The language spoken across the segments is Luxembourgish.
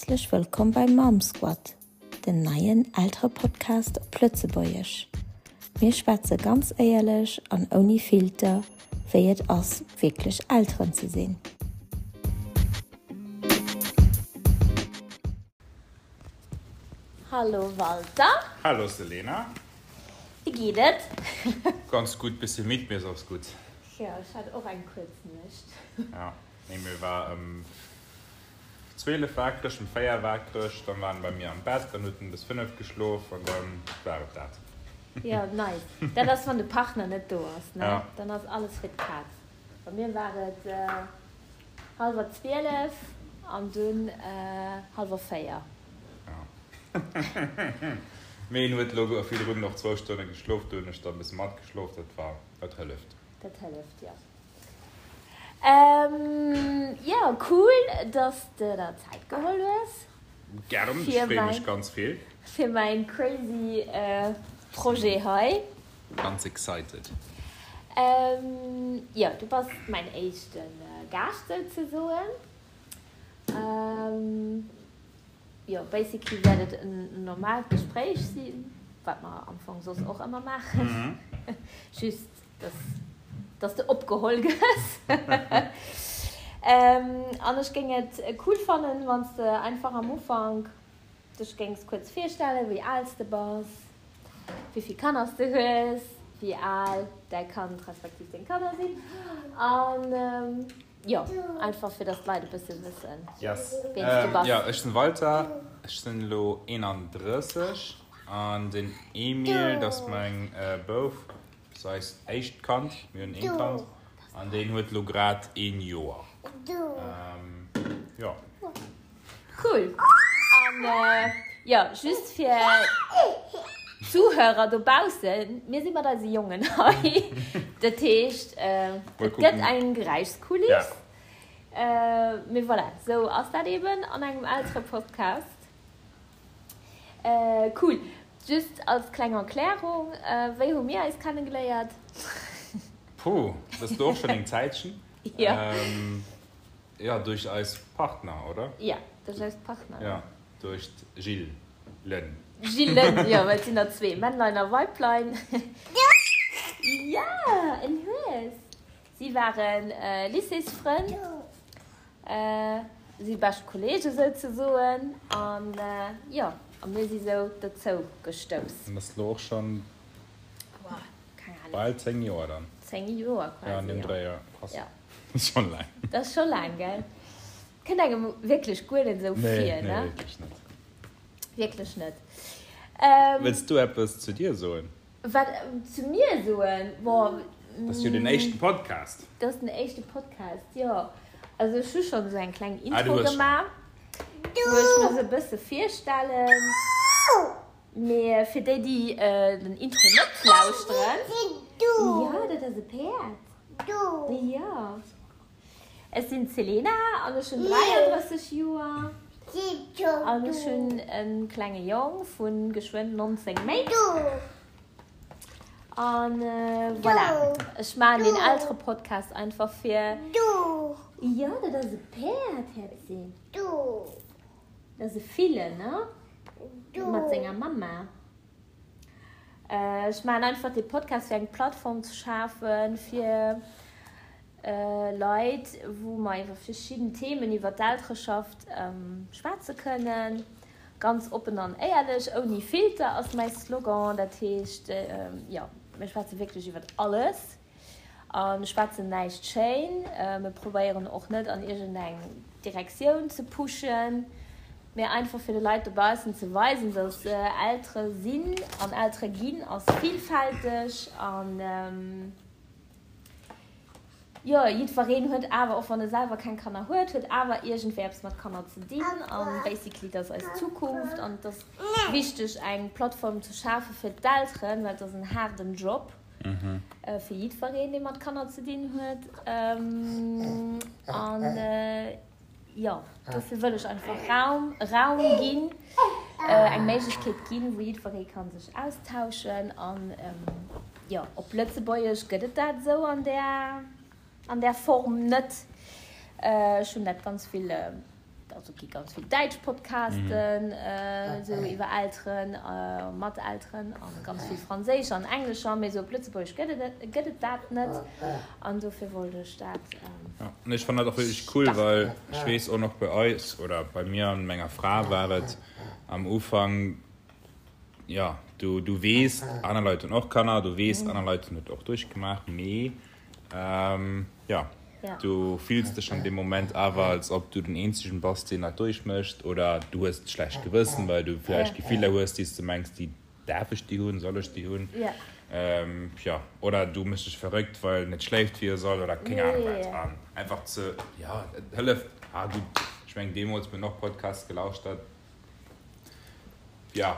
Häerzlech wëllkomm bei Mom Squad, den neien Elterepodcast op Lëtzebuergesch. Mir schwätze ganz éierlech an ouni Filter, wéi et ass, wierklech Elteren ze sinn. Hallo Walter. Hallo Selena. Wéi geet et? Ganz gutt, bëssi midd, mee soss gutt. Jo, ech hat och eng kuerz Nuecht. Ja, nee, mir war ëm 12 waakreg, ëm 4 waakreg, dann war en bei mir am Bett, dann huet en bis 5 geschlof an dann war et dat. Jo, nice. Dat ass, wann de Partner net do ass, ne? Ja. Dann ass alles fir d'Kaz. Bei mir war et hallwer 12 an dunn hallwer 4. Mee en huet elo virdrun och zwou Stonne geschlof, do hunn ech da e bësse matgeschlof, dat war, dat hëlleft. Dat hëlleft, jo. Jo, cool, dass de der Zäit geholl hues. Gären, ech freeë mech ganz vill. Fir mäin crazy Projet hei. Ganz excited. Jo, du bass mäin éischte Gaascht souzesoen. Jo, basically wäert et en normaalt Gespréich sinn, wat mer am Fong soss och ëmmer maachen, just dass dass de opgeholl gëss. An ech géing et cool fannen, wann s de einfach am Ufank dech géings kuerz virstellen, wéi al s de bass, wéi vill Kanner s de hues, wéi al däi Kand respektiv deng Kanner sinn an. Jo, einfach fir dass d'Leit e bësse wëssen, Yes. ween s du bass. Jo, ech sinn Walter, ech sinn elo 31 an den Emil, dat ass mäin Bouf, dat ass eist éischt Kand, mir hunn een Kand an deen huet elo grad een Joer. Jo. Cool! An jo, just fir d'Zuhörer dobaussen, mir si mat eise Jongen hei. Dat heescht, et gëtt eng Geräischskuliss. Mee voilà, sou ass dat eben an engem Elterepodcast. Cool! Just als kleng Erklärung, wéi hu mir eis kennegeléiert? Puh, dat ass elo och schonn eng Zäitchen. Jo. Jo, duerch eis Partner, oder? Jo, duerch eis Partner. Jo, duerch d'Jillen. Jillen, jo, well et sinn der zwee, Männlein a Weiblein. Jo, en Hues. Si ware Lycéesfrënn, si bescht Kolleege souzesoen, an jo, a mir si sou dozou gestouss. An dat ass elo och schonn bal 10 Joer dann. 10 Joer quasi, jo. Jo, an deem Dréi, jo. Krass. Dat ass schonn laang. Dat ass scho laang, gell? Kënnt engem wierklech guer net esou vir, ne? Nee, wierklech net. Wierklech net. Wëlls du eppes zu dir soen? Wat zu mir soen? Boah. Dat ass jo den éischten Podcast. Dat ass den éischte Podcast, jo. Also ech hu schonn esou eng kleng Intro gemaach, wou ech mech esou e bësse virstellen. Mee fir déi, déi den Intro net lauschteren. Jo, dat ass e Päerd. Jo. Ech sinn d'Selena an ech hunn 33 Joer an ech hunn e klenge Jong vu geschwënn 19 Méint. An voilà, ech maachen deen Elterepodcast einfach fir. Jo, dat ass e Päerd, Häerzi. Dat ass e Fille, ne? Mat senger Mamma. Ech maachen einfach dee Podcast fir eng Plattform ze schafen fir Leit, wou mer iwwer verschidden Themen iwwer d'Eltereschaft schwätze kënnen. Ganz oppen an éierlech, ouni Filter ass mäi Slogan. Dat heescht, jo, mir schwätze wierklech iwwer alles. A schwätzen näischt schéin. Mir probéieren och net an iergendeng Direktioun ze pushen, mee einfach fir de Leit dobaussen ze weisen, dass Eltere sinn an Eltere ginn ass villfälteg an jo, jiddwereen huet awer, och wann e selwer keng Kanner huet, huet awer iergendwéi eppes mat Kanner ze dinn an basically dat ass eis Zukunft an et ass wichteg eng Plattform ze schafe fir d'Elteren, well et ass en haarden Job. Fir jiddwereen, dee mat Kanner ze dinn huet. An jo, dofir wëll ech einfach Raum, Raum ginn, eng Méiglechkeet ginn, wou jiddweree ka sech austauschen. An jo, op Lëtzebuergesch gëtt et dat esou an där, an där Form net. Ech hunn dat ganz vill. Also et gi ganz vill däitsch Podcasten esou iwwer Elteren, mat Elteren a ganz vill franséischer an englescher, mee esou op Lëtzebuergesch gëtt et gëtt et dat net an dofir wollt ech dat. Jo, an ech fannen dat och wierklech cool, well ech weess och nach bei eis oder bei mir an menger Fra war et am Ufank, jo, du du weess aner Leit hunn och Kanner, du weess aner Leit hunn et och duerchgemaach, mee Jo, du fills dech an deem Moment awer, als ob du den Eenzegen bass, deen dat duerchmécht, oder du hues e schlecht Gewëssen, well du vläicht Gefiller hues, déi s de mengs, déi däerf ech déi hunn, soll ech déi hunn, jo, oder du méchs dech verrëckt, well en net schléift, wéi e soll, oder keng Anung wat. An einfach ze, jo, et hëlleft. Ah gutt, ech mengen, deemools, mir hunn och Podcasts gelauschtert, jo.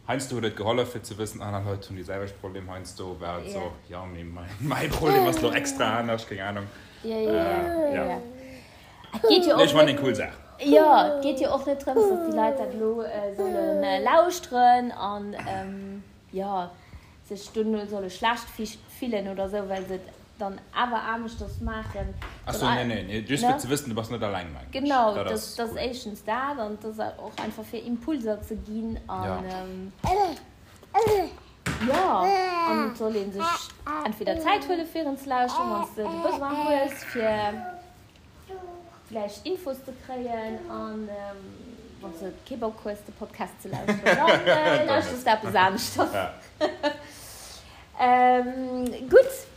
Heiansdo huet et gehollef fir ze wëssen, aner Leit hunn déi selwecht Problem. Heiansdo war et sou, jo mee mäi Problem ass lo extra anescht, keng Ahnung. Jo, jo, jo, jo. Et geet jo och net. Ech fannen eng cool Saach. Jo, et geet jo och net drëms, datt déi Leit dat elo solle lauschteren an jo sech dono solle schlecht fillen oder sou, well se et dann awer aneschters maachen. Ach sou, nee, nee, nee, just fir ze wëssen, du bass net alleng, mengen ech. Genau, dat ass éischtens dat an et ass och einfach fir Impulser ze ginn an jo, an et soll ee sech entweder Zäit huele fir en ze lauschteren, wann s de de Besoin hues, fir vläicht Infos ze kréien an wann s de kee Bock hues de Podcast ze lauschteren, dann lauschters de eppes aneschters. Gutt.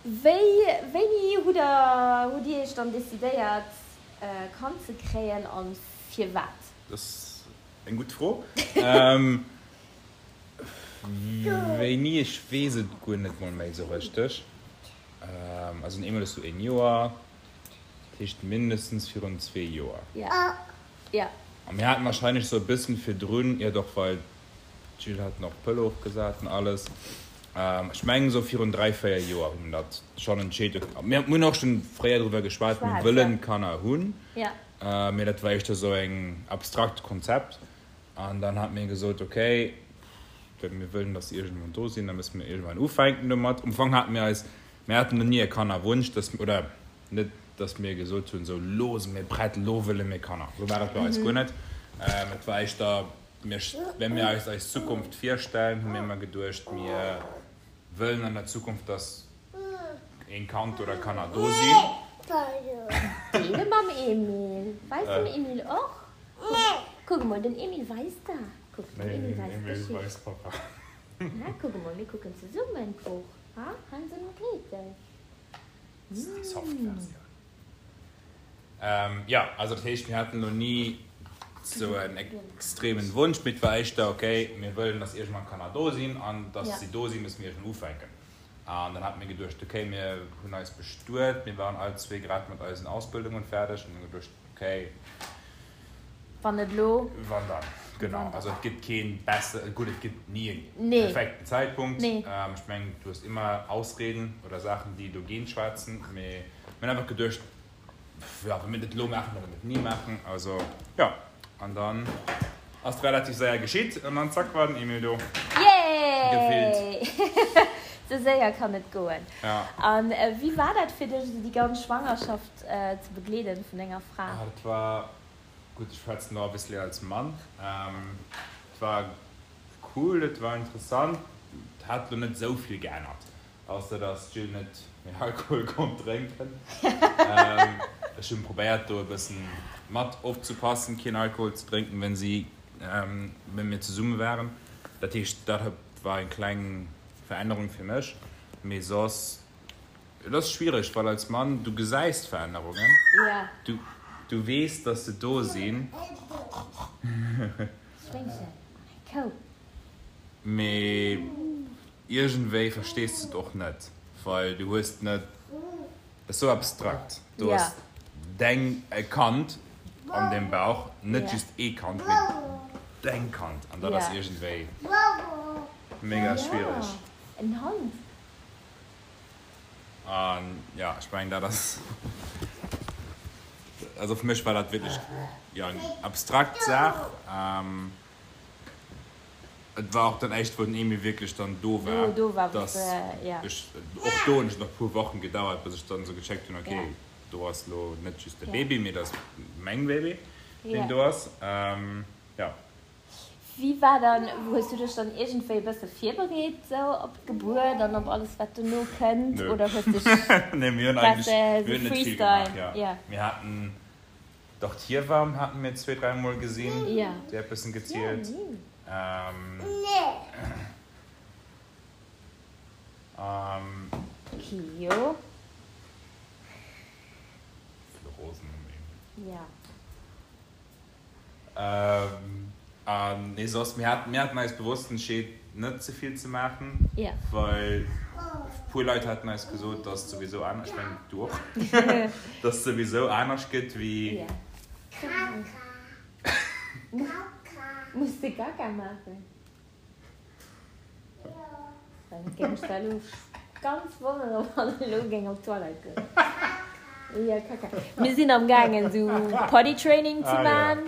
Wéi, wéini hutt der, hutt Dir Iech dann decidéiert e Kand ze kréien an firwat? Dat ass eng gutt Fro. Wéini, ech weess et guer net mol méi esou richteg. Also den Emil ass lo een Joer, dat heescht mindestens virun zwee Joer. A mir haten wahrscheinlech esou e bëssen virdrun, jo doch, well d'Jill hat nach d'Pëll ofgesat an alles. Ech mengen esou virun 3, 4 Joer hu mir dat schonn entscheet. Mir hunn och schonn fréier driwwer geschwat, mir wëllen Kanner hunn, mee dat war éischter esou eng abstrakt Konzept. An dann hat mir gesot, okay, mir wëllen, dass se iergendwann do sinn, da musse mir iergendwann ufänken domat. Am Fong hate mir eis, mir haten no ni e Kannerwunsch, dass, oder net, dass mir gesot hunn, esou, lo si mir prett, lo wëlle mir Kanner. Esou war dat bei eis guer net. Et war éischter, mir, wa mir eis eis Zukunft virstellen, hu mir ëmmer geduecht, mir wëllen an der Zukunft, dass een Kand oder Kanner do sinn. Deele mam Emil. Weist dem Emil och. Kuck emol, den Emil weist der. Kuck, den Emil weist d'Geschicht. Na, kuck emol, mir kucken zesummen d'Buch, ha, Hänsel und Gretel. Dat ass déi soft Versioun. Jo, also dat heescht, mir haten elo ni sou en extremen Wunsch, mee et war éischter, okay, mir wëllen, dass iergendwann Kanner do sinn an dass si do sinn, musse mir iergendwann ufänken. An dann hate mir geduecht, okay, mir hunn eis bestuet, mir waren all zwee grad mat eisen Ausbildungen fäerdeg an hunn geduecht, okay, Wann net elo, wann dann? Genau, also et gëtt kee besser, gutt, et gëtt ni e perfekten Zäitpunkt. Ech mengen, du hues ëmmer Ausreden oder Saachen, déi dogéint schwätzen, mee mir hunn einfach geduecht, jo, wa mir et net elo maachen, da wëlle mir et ni maachen. Also, jo, an dann ass et relativ séier geschitt an dann zack war den Emil do. Yay! Gefillt. Sou séier kann et goen. Ja. An wéi war dat fir dech, esou déi ganz Schwangerschaft ze begleeden vun denger Fra? Ah, dat war, gutt, ech schwätzen elo obviously als Mann. Et war cool, et war interessant, et hat elo net esou vill geännert. Ausser dass d'Jill net méi Alkohol konnt drénken. Ech hunn probéiert do e bëssen mat opzepassen keen Alkohol ze drénken wenn si wenn mir zesumme waren. Dat heescht dat war eng kleng Verännerung fir mech. Mee soss, et ass schwiereg well als Mann du gesäis d'Verännerungen, du du weess dass se do sinn. Schwéngchen an eng Kou. Mee iergendwéi verstees de et och net, well du hues net, et ass sou abstrakt, du hues deng e Kand an dem Bauch, net just ee Kand, mee deng Kand, an dat ass iergendwéi mega schwiereg. En Hond. An jo, ech mengen dat ass, also fir mech war dat wierklech, jo, eng abstrakt Saach. Et war och dann éischt wou den Emil wierklech dann do war, do war dass ja. ech, och do hunn ech nach puer Wochen gedauert bis ech dann esou gecheckt hunn, okay. Do ass lo net just de Baby, mee dat ass meng Baby, deen do ass. Jo. Wéi war dann, hues du dech dann iergendwéi e bësse virbereet sou op d'Gebuert an op alles wat dono kënnt oder hues dech Nee, mir hunn eigentlech, mir hunn net vill gemaach, jo. Mir haten, dach d'Hiewamm hate mir zwee, dräimol gesinn, déi hat bëssen gezielt. Kio. Rosen um Emil. Ja. An nee, soss, mir haten, mir haten eis bewosst entscheet, net ze vill ze maachen. Ja. Well puer Leit haten eis gesot, dass et souwisou anescht, ech mengen du och, dass et souwisou anescht gëtt wéi. Ja. Muss de Kaka maachen? Dann géing ech da elo ganz wonneren, wann en elo géing op d'Toilette goen. Ja, Kaka. Mir sinn am gaangen esou Potty Training ze man.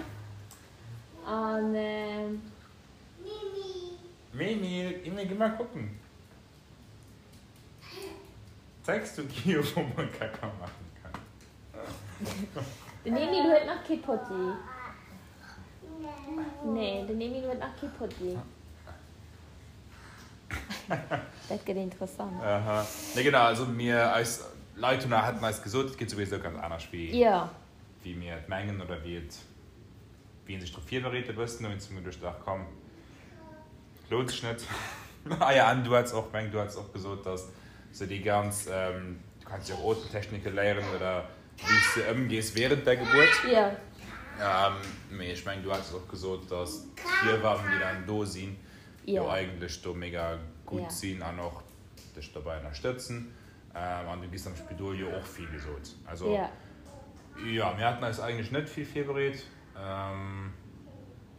An. Mimi, Emil, geh mal gucken. Zeigst du Gio, wou man Kaka machen kann? Den Emil huet nach kee Potti. Nee, den Emil huet nach kee Potti. Dat gëtt interessant. Aha. Nee, genau, also mir, eis Leit hunn, haten eis gesot, et geet souwisou ganz anescht wéi, Ja. wéi mir et mengen oder wéi et, wéi een sech drop virbereet e bëssen. Dowéinst hu mir geduecht, ach komm, lount sech net. Ah ja, an du hats och, meng du hats och gesot, dass sou déi ganz, du kanns jo och Otemtechnike léieren oder wéi s de ëmgees während der Gebuert. Jo. Mee ech meng, du hats och gesot, dass d'Hiewammen, déi dann do sinn, jo eigentlech do mega gutt sinn an och dech dobäi ënnerstëtzen. An du giss am Spidol jo och vill gesot. Also jo, mir haten eis eigentlech net vill virbereet.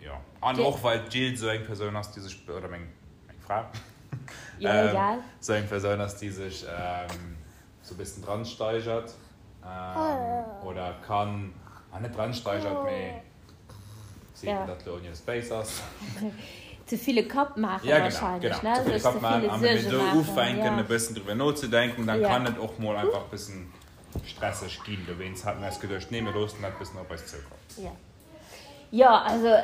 Jo, an och well d'Jill esou eng Persoun ass, déi sech, oder meng Fra, esou eng Persoun ass, déi sech esou e bëssen dran steigert oder kann, ah net dran steigert, mee si eben dat elo ouni eis béis ass. Ze vill e Kapp maachen wahrscheinlech, ne? Ja genau, ze vill e Kapp maachen. An wenn mir do ufänken e bëssen driwwer nozedenken, dann kann et och mol einfach e bëssen stresseg ginn. Dowéinst hate mir eis geduecht, nee, mir loossen dat bëssen op eis zoukommen. Jo. Jo, also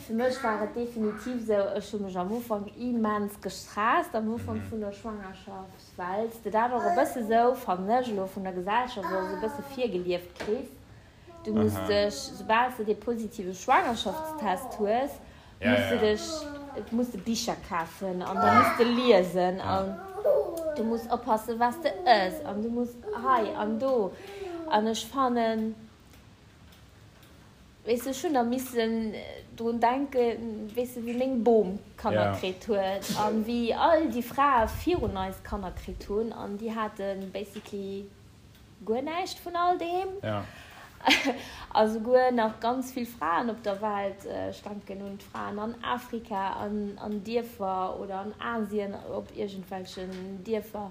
fir mech war et definitiv esou, ech hu mech am Ufank immens gestresst, am Ufank vun der Schwangerschaft, well s de dat och e bësse sou, fannen ech elo, vun der Gesellschaft och esou e bësse virgelieft kriss, du muss dech, soubal s de dee positive Schwangerschaftstest hues, muss de dech, muss de Bicher kafen an da muss de liesen an du muss oppassen, wat s de ëss an du muss hei an do an ech fannen, Weess de, ech hunn da missen drun denken, weess de, wéi meng Bom Kanner kritt huet an wéi all déi Frae virun eis Kanner kritt hunn an déi hate basically guer näischt vun all deem. A souguer nach ganz vill Fraen op der Welt, ech denken un d'Fraen an Afrika an an Dierfer oder an Asien op iergendwelchen Dierfer,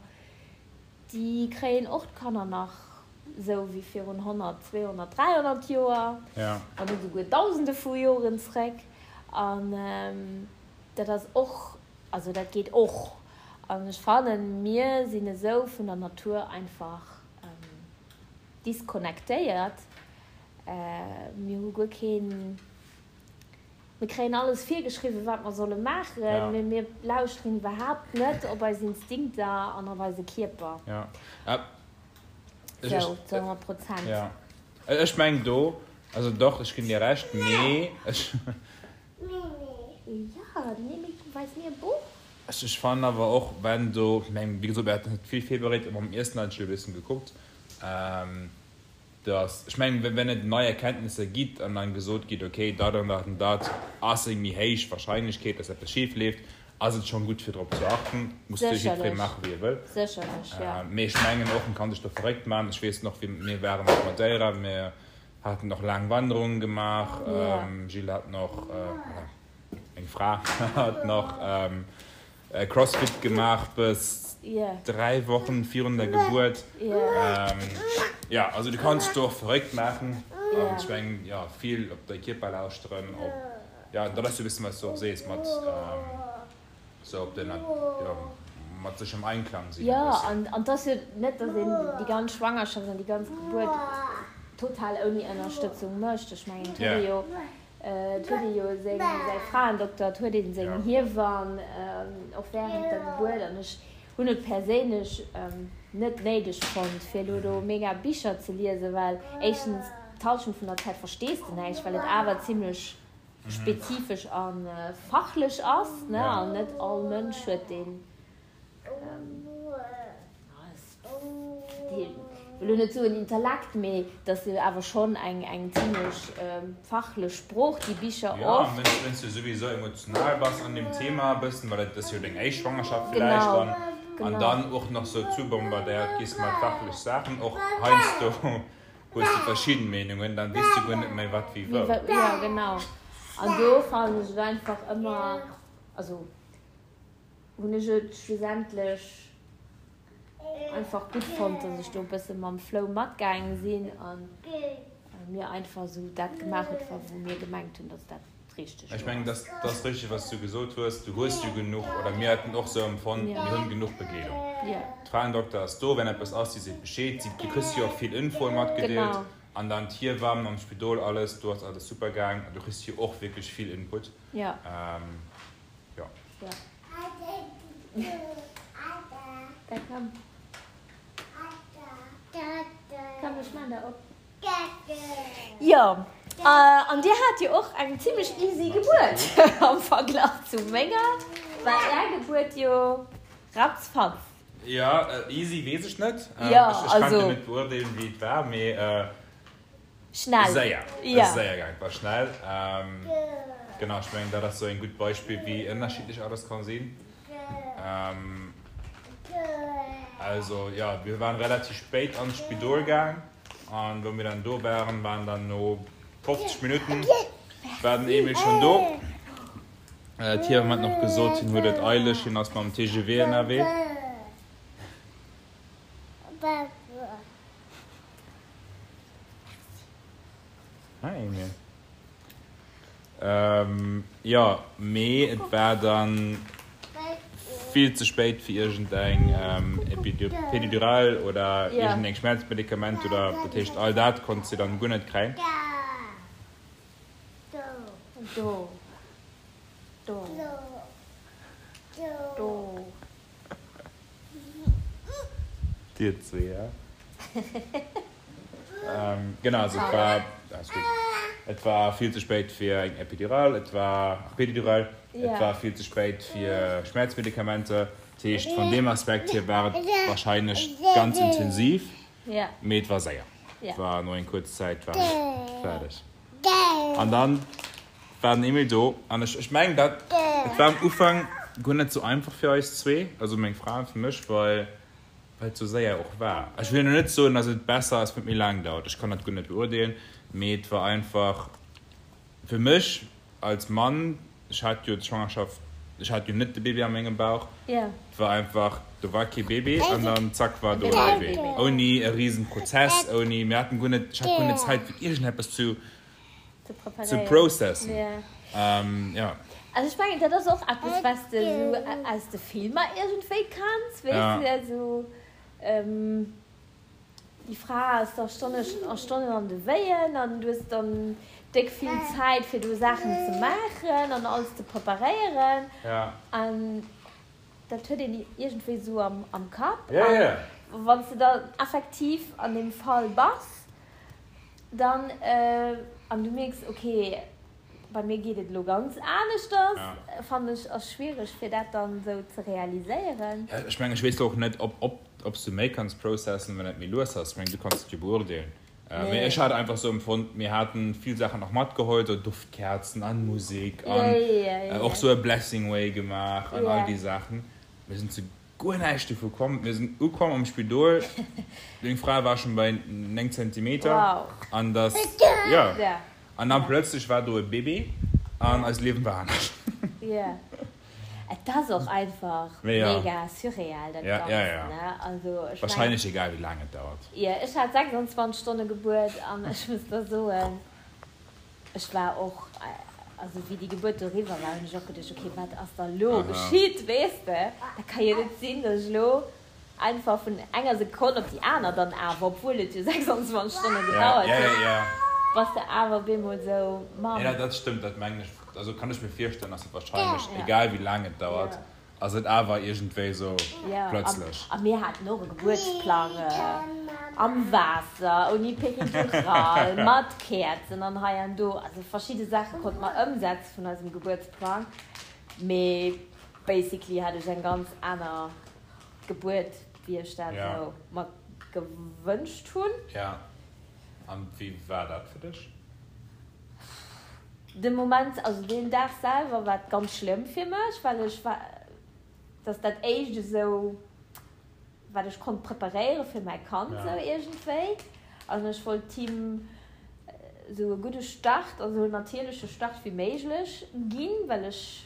Déi kréien och d'Kanner nach esou wéi virun 100, 200, 300 Joer, wann net esouguer Dausende vu Joren zréck. An dat ass och, also dat geet och. An ech fannen, mir sinn esou vun der Natur einfach disconnectéiert. Mir hu guer keen. Mir kréien alles virgeschriwwen, wat mer solle maachen, mee mir lauschteren iwwerhaapt net op eis Instinkter an op eise Kierper. Sou, zu 100 Prozent. Jo, ech mengen do, also doch, ech ginn dir Recht, mee ech. Jo, den Emil weist mir e Buch. Ech fannen awer och, wenn do, ech mengen, wéi gesot, mir haten net vill virbereet, mam Iessen hat ech e bëssen gekuckt. Dass, ech mengen, wenn et nei Erkenntnisser gitt an dann gesot gitt, okay, dat an dat an dat ass eng méi héich Wahrscheinlechkeet, dass eppes schif leeft, ass et schonn gutt fir drop ze achten. Muss natierlech jiddweree maachen, wéi e wëll. Sécherlech, jo. Mee ech mengen och, en kann sech do verréckt maachen. Ech weess nach, wéi mir waren op Madeira, mir haten och laang Wanderungen gemaach, Gilles hat nach, oder meng Fra hat nach Crossfit gemaach bis 3 Wochen virun der Gebuert. Jo, also du kanns dech do och verréckt maachen. An ech mengen, jo, vill op däi Kierper lauschteren, op, jo, dat ass jo e bëssen, wat s du och sees, mat sou op den, jo, mat sech am Einklang sinn e Jo, bëssen. an an 't ass jo net, datt een déi ganz Schwangerschaft an déi ganz Gebuert total ouni Ënnerstëtzung mécht. Ech mengen, et huet ee jo, et huet ee jo seng, säi Fraendokter, et huet ee seng Hiewann och wärend der Gebuert. An ech hunn et perséinlech net néideg fonnt, fir elo do mega Bicher ze liesen, well éischtens d'Hallschent vun der Zäit verstees de näischt, well et awer zimlech spezifesch a fachlech ass, ne, an net all Mënsch huet deen, ech wëll elo net soen Intellekt, mee et ass jo awer schonn eng eng zimlech fachlech Sprooch, déi Bicher oft. Jo, an wenn's du souwisou emotional bass an deem Thema e bëssen, well et ass jo deng éischt Schwangerschaft villäicht dann, an dann och nach sou zubombardéiert giss mat fachlech Saachen, och heiansdo Hues de verschidden Meenungen, dann weess du guer net méi wat wéi wou. Jo genau, an do fannen ech et einfach ëmmer, also hunn ech et schlussendlech einfach gutt fonnt, dass ech do e bësse mam Flow matgaange sinn an mir einfach esou dat gemaach huet, wou mir gemengt hunn, dass dat Richteg. Ech mengen, dat ass richteg, wat s du gesot hues. Du hues jo genuch, oder mir haten och esou empfonnt, mir hunn genuch Begleedung. D'Fraendokter ass do, wenn eppes ass, si seet Bescheed. Si, du kriss jo och vill Infoe matgedeelt. An dann d'Hiewamm am Spidol, alles, do ass alles super gaang. Du kriss jo och wierklech vill Input. Jo. Da komm. Komm, ech maan der op. Jo, an dir hat jo och eng zimlech easy Gebuert am Verglach zu menger. War är Gebuert jo ratzfatz. Jo, easy weess ech net. Jo, also. Ech kann jo net beurdeelen, wéi et war, mee. Schnell. Séier. Et ass séier gaangen, et war schnell. Genau, ech mengen, dat ass sou en gutt Beispill, wéi ënnerschiddlech alles ka sinn. Also, jo, mir waren relativ spéit an d'Spidol gaang. An wou mir dann do waren, waren dann no 50 Minutten war den Emil schon do. D'Hiewamm hat nach gesot, hien huet et eileg, hien ass mam TGV ënnerwee. Hi Emil. Jo, mee et war dann vill ze spéit fir iergend eng Pédidural oder iergend eng Schmerzmedikament oder dat heescht all dat konnt si dann guer net kréien. Dir zwee, ja. Genau, also et war, alles gutt, et war vill ze spéit fir eng Epidural, et war, ach Pédidural, et war vill ze spéit fir Schmerzmedikamenter. Dat heescht, vun deem Aspekt hier war et wahrscheinlech ganz intensiv, mee et war séier. Et war no eng kuerz Zäit war ech fäerdeg. An dann war den Emil do an ech, ech mengen dat, et war am Ufank guer net sou einfach fir eis zwee, also meng Fra an fir mech, well well et sou séier och war. Ech wëll elo net soen, dass et besser ass, wann et méi laang dauert, ech kann dat guer net beurdeelen, mee et war einfach fir mech als Mann, ech hat jo d'Schwangerschaft, ech hat jo net de Baby a mengem Bauch, et war einfach, do war kee Baby an dann zack war do e Baby, ouni e risen Prozess, ouni, mir haten guer net, ech hat guer net Zäit fir iergendeppes zu ze processen. Jo. Also ech mengen dat ass och eppes wat s de esou aus de Filmer iergendwéi kanns, weess de, esou déi Fra ass da Stonne a Stonnen an de Wéien an du hues dann déck vill Zäit fir do Saachen ze maachen an alles ze preparéieren an dat huet een iergendwéi esou am Kapp an wann s de dann effektiv an deem Fall bass, Dann, an du mierks, ok, bei mir geet et elo ganz aneschters, fannen ech, ass schwiereg fir dat dann esou ze realiséieren. Ech mengen, ech weess och net, ob, ob s du méi kanns processen, wann et méi lues ass. Ech mengen, du kanns et jo beurdeelen. Mee ech hat einfach esou empfonnt, mir haten vill Saachen och matgeholl, sou Duftkerzen an Musek an och sou e Blessing Way gemaach an all déi Saachen. Mir sinn zu Guer näischt dovu komm. Mir sinn ukomm am Spidol, deng Fra war schon bei 9 Zentimeter an dass, jo, an dann plötzlech war do e Bébé an eist Liewen war anescht. Jo, et ass och einfach mega surreal dat Ganzt, ne? Also ech mengen. Wahrscheinlech egal wéi laang et dauert. Jo, ech hat 26 Stonne Gebuert an ech muss der soen, ech war och. Also wéi déi Gebuert do eriwwer war, hunn ech och geduecht, okay, wat ass da lo geschitt, weess de? Dat ka jo net sinn, datt ech elo einfach vun enger Sekonn op déi aner dann awer, obwuel et jo 26 Stonne gedauert huet, bass de awer op eemol esou Mamm. Jo, dat stëmmt, dat mengen ech, also kann ech mir virstellen, datt et wahrscheinlech, egal wéi laang et dauert, Ass et awer iergendwéi esou plötzlech. A mir haten och e Gebuertsplang am Waasser, ouni Peridural, mat Käerzen an hei an do. Also verschidde Saache konnte mer ëmsetze vun eisem Gebuertsplang, mee basically hat ech eng ganz aner Gebuert, wéi ech dat esou mer gewënscht hunn. Jo, an wéi war dat fir dech? De Moment, also deen Dag selwer war et ganz schlëmm fir mech, well ech war, dat ass dat éischt esou wat ech konnt preparéiere fir mäi Kand esou iergendwéi. An ech wollt him esou e gudde Start, also en natierleche Start wéi méiglech ginn, well ech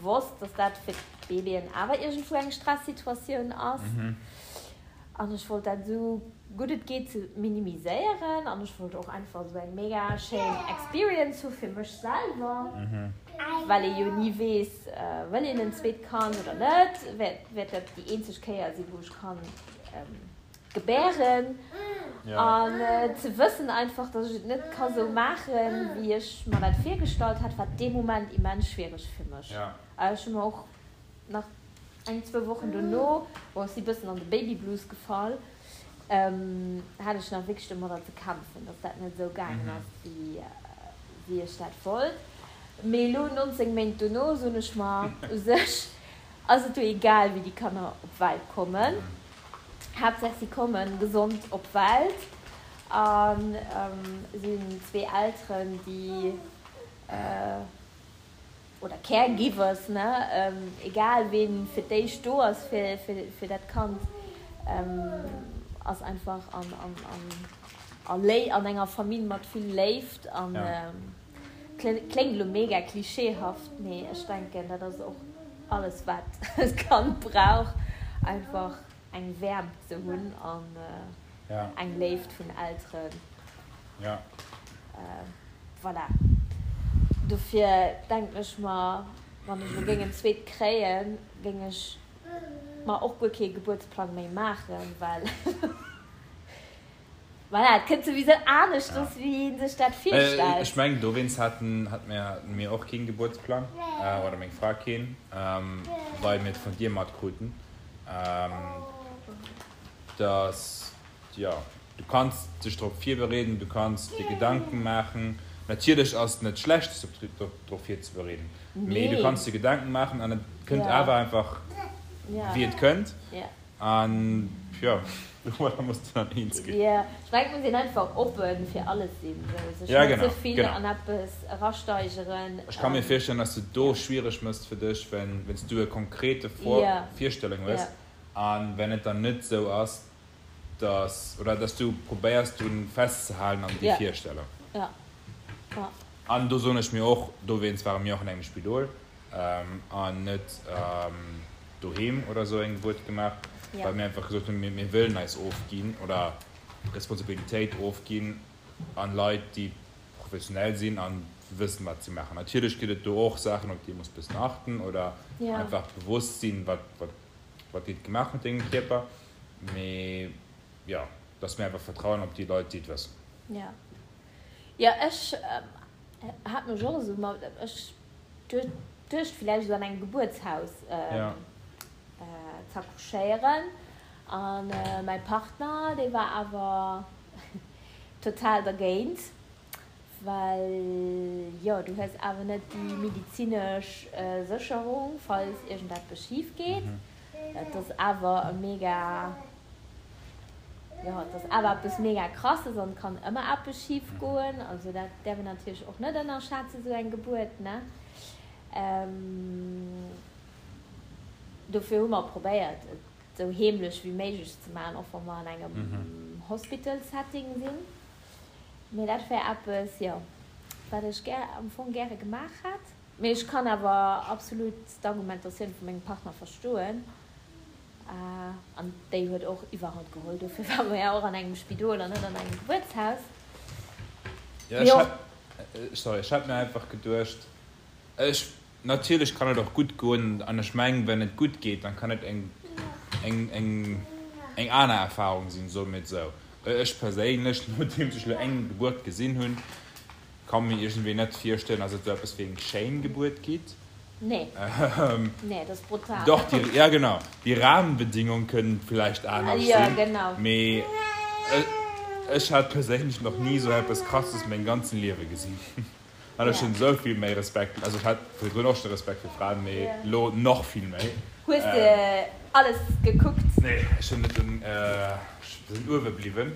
wosst, dass dat fir d'Bébéen awer iergendwou eng Stressituatioun ass. An ech wollt dat esou gutt et geet ze minimiséieren an ech wollt och einfach esou eng mega schéin Experience hu fir mech selwer, well ee jo ni weess, wëll een en zweet Kand oder net, wäert dat déi eenzeg Kéier sinn, wou ech kann gebären. An ze wëssen einfach, dass ech et net ka sou maachen, wéi ech mer dat virgestallt hat, war dee Moment immens schwiereg fir mech. Ech hu mer och nach eng, zwou Wochen dono, bon, ech si bëssen an de Baby Blues gefall, hat ech nach wierklech domadder ze kämpfen, dass dat net esou gaangen ass, wéi ech dat wollt. Mee elo, 19 Méint dono, soen ech mer, u sech ass et jo egal, wéi déi Kanner op d'Welt kommen, Haaptsaach si kommen gesond op d'Welt a sinn zwee Elteren, déi, oder Caregivers, ne, egal ween fir d'éischt do ass fir dat Kand, ass einfach an enger Famill mat vill Léift an kléngt elo mega klischeehaft, mee ech denken dat ass och alles wat d'Kand brauch, einfach eng Wäermt ze hunn an eng Léift vun Elteren. Voilà. Dofir denken ech mer, wann ech elo géing en zweet kréien, géing ech mer och guer kee Gebuertsplang méi maachen, well voilà, et kënnt souwisou aneschters, wéi ee sech dat virstellt. Ech mengen, dowéinst haten mir och keen Gebuertsplang, oder meng Fra keen, well mir et vun dir matkruten, dass, jo, Du kanns dech drop virbereeden, du kanns dir Gedanken maachen. Natierlech ass et net schlecht, sech drop virzebereeden, mee du kanns dir Gedanken maachen an et kënnt awer einfach wéi et kënnt. An jo, domadder muss de dann eens ginn. Jo, ech mengen, et muss een einfach oppe fir alles sinn, sou sech net ze vill an eppes erasteigeren. Ech ka mir virstellen, dass du do schwiereg mëss fir dech, wenn s du e konkrete Virstellung hues an wenn et dann net sou ass, dass, oder dass du probéiers drun festzehalen an déi Virstellung. Ja. Ja. An do soen ech mir och, dowéinst ware mir och an engem Spidol an net doheem oder esou eng Gebuert gemaach, well mir einfach gesot hunn, mir wëllen eis ofginn oder Responsabilitéit ofginn an Leit, déi professionell sinn an wëssen, wat si maachen. Natierlech gëtt et do och Saachen, op déi ee muss bëssen achten oder einfach bewosst sinn, wat, wat, wat gétt gemaach mat dengem Kierper. Mee jo, dass mir einfach vertrauen op déi Leit, déi et wëssen. Jo, jo, ech hat mech och esou, ma ech duecht villäicht esou an engem Gebuertshaus z'accouchéieren. A mäi Partner, dee war awer total dergéint, well jo, du hues awer net déi medizinesch Sécherung, falls iergendeppes schif geet. Et ass awer e mega, jo, et ass awer eppes mega Krasses an et kann ëmmer eppes schif goen. Also dat däerf een natierlech och net ënnerschätzen, esou eng Gebuert, ne? Dofir hu mer probéiert, et esou heemlech wéi méiglech ze maachen, och wa mer an engem Hospital-Setting sinn. Mee dat wär eppes, jo, wat ech gär, am Fong gäre gemaach hätt. Mee ech kann awer absolut d'Argumentatioun vu mengem Partner verstoen. An déi huet och iwwerhand geholl. Dofir ware mer ja och an engem Spidol an net an engem Gebuertshaus. Jo, ech hat. Sorry, ech hat mir einfach geduecht, ech, natierlech kann et och gutt goen an ech mengen, wenn et gutt geet, dann kann et eng, eng, eng, eng aner Erfahrung sinn, soe mir et esou. Ech perséinlech, nodeems ech elo eng Gebuert gesinn hunn, ka mir iergendwéi net virstellen, dass et esou eppes wéi eng schéin Gebuert gitt. Nee, nee, dat ass brutal. Doch, déi, ja genau, déi Rahmenbedingung kënnen villäicht anescht sinn. Ja, genau. Mee ech hat perséinlech nach ni esou eppes Krasses mengem ganzen Liewe gesinn. An ech hunn esou vill méi Respekt, also ech hat virdrun och schon Respekt fir Fraen, mee elo nach vill méi. Hues de alles gekuckt? Nee, ech hunn net, ech sinn uewe bliwwen.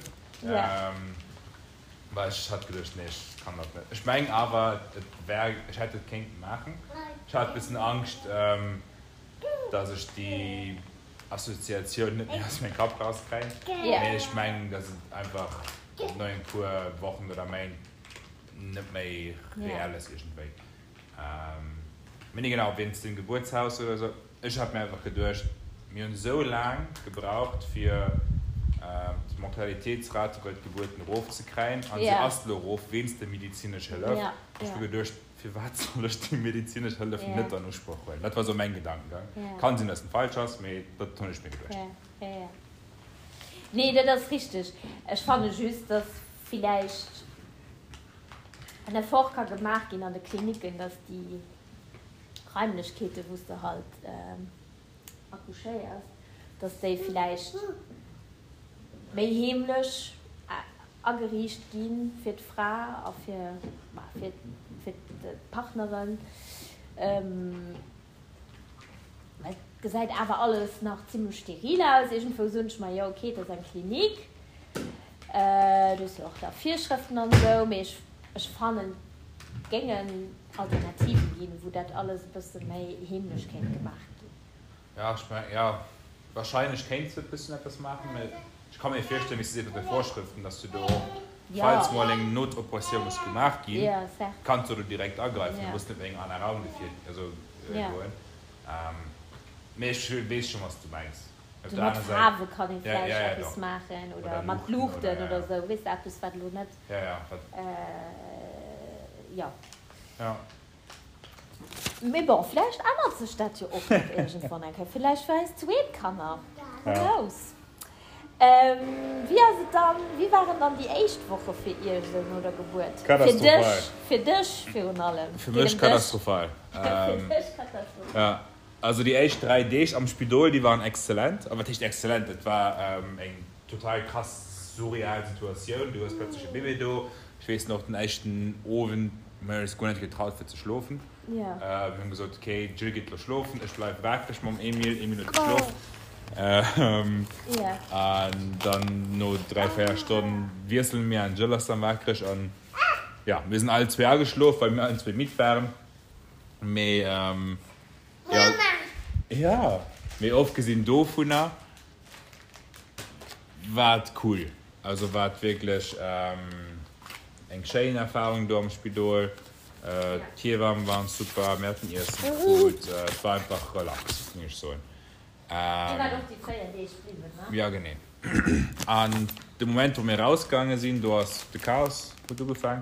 Well ech hat geduecht, nee, ech kann dat net. Ech mengen awer, et wär, ech hätt et kéinten maachen. Ech hat e bëssen Angscht, dass ech déi Assoziatioun net méi aus mengem Kapp rauskréien. Mee ech mengen, dass et einfach no e puer Wochen oder Méint net méi reell ass iergendwéi. Mee nee, genau, wéinst dem Gebuertshaus oder esou. Ech hat mir einfach geduecht, mir hunn esou laang gebraucht fir d'Mortalitéitsrate bei d'Gebuerten erof ze kréien an se ass elo erof wéinst der medizinesch Hëllef. Ech hu geduecht, firwat soll ech déi medizinesch Hëllef net an Usproch huelen? Dat war esou mäin Gedankengang. Kann sinn, datt en falsch ass, mee dat hunn ech mir geduecht. Nee, dat ass richteg. Ech fanne just, datt villäicht en Effort ka gemaach ginn an de Klinicken, datt déi Raimlechkeeten, wou s de halt accouchéiers, dass déi villäicht méi heemlech ageriicht gi fir d'Fra a fir, fir, fir d'Partneren. Well et gesäit awer alles nach zimmlech steril aus. Iergendwou soen ech mer, jo okay, et ass eng Klinik, do hues jo och da Virschrëften an esou, mee ech, ech fannen, et géingen Alternativen ginn, wou dat alles e bësse méi heemlech kéint gemaach ginn. Ja, ech mengen, jo, wahrscheinlech kéints de e bëssen eppes maachen, mä ech ka mir virstellen, wéi s de sees mat de Vorschriften, dass du do och, falls mol eng Notoperatioun muss gemaach ginn, kanns du do direkt agreifen, du muss net méi an en aner Raum gefiert, also goen. Mee ech weess schonn, wat s du mengs. Op der aner Säit. Mat Faarwe kann ee vläicht eppes maachen oder mat Luuchten oder esou, weess de, eppes wat elo net, jo. Mee bon, vläicht ännert sech dat jo och nach iergendwann eng Kéier, vläicht fir eis zweet Kanner, who knows. Wéi ass et dann, wéi waren dann déi éischt Woche fir iech esou no der Gebuert? Fir dech, fir dech virun allem. Fir mech katastrophal. Fir dech katastrophal. Also déi éischt 3 Deeg am Spidol, déi waren exzellent. A wat heescht exzellent? Et war eng total krass surreal Situatioun. Du hues plötzlech e Bébé do. Ech weess nach, den éischten Owend, mir hunn eis guer net getraut fir ze schlofen. Mir hunn gesot, okay, d'Jill geet elo schlofen, ech bleiwe waakreg mam Emil. Emil huet geschlof. An dann no 3, 4 Stonnen wiessele mir an d'Jill ass dann waakreg. An jo, mir sinn allen zwee ageschlof, well mir allen zwee midd waren. Mee jo, jo, mee ofgesinn dovunner war et cool. Also war et wierklech eng schéin Erfarung do am Spidol. D'Hiewamme waren super, mir haten Iessen krut, et war einfach relax, géing ech soen. Dir waart och déi 4 Deeg bliwwen, ne? Jo, genee. An de Moment, wou mir erausgaange sinn, do ass de Chaos huet ugefaang.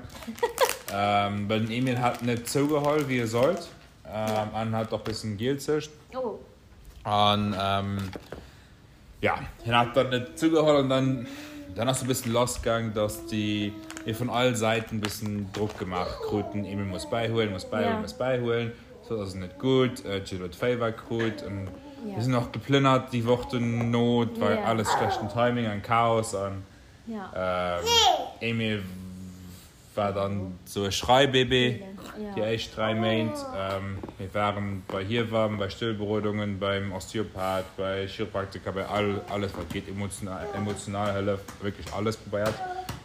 Well den Emil hat net zougeholl, wéi e sollt. An hat och bëssen gielzecht. An jo, hien hat dann net zougeholl an dann, dann ass e bëssen lassgaang, dass déi mir vun all Säiten bëssen Drock gemaach kruten, Emil muss bäihuelen, muss bäihuelen, muss bäihuelen. Soss ass et net gutt. D'Jill huet Féiwer krut an mir sinn och geplënnert déi Woch dono. Et war alles schlechten Timing an Chaos an Emil war dann sou e Schreibébé déi éischt 3 Méint. Mir waren bei Hiewamm, bei Stëllberodungen, beim Osteopath, bei Chiropraktiker, bei all alles wat geet, emotional Hëllef, wierklech alles probéiert.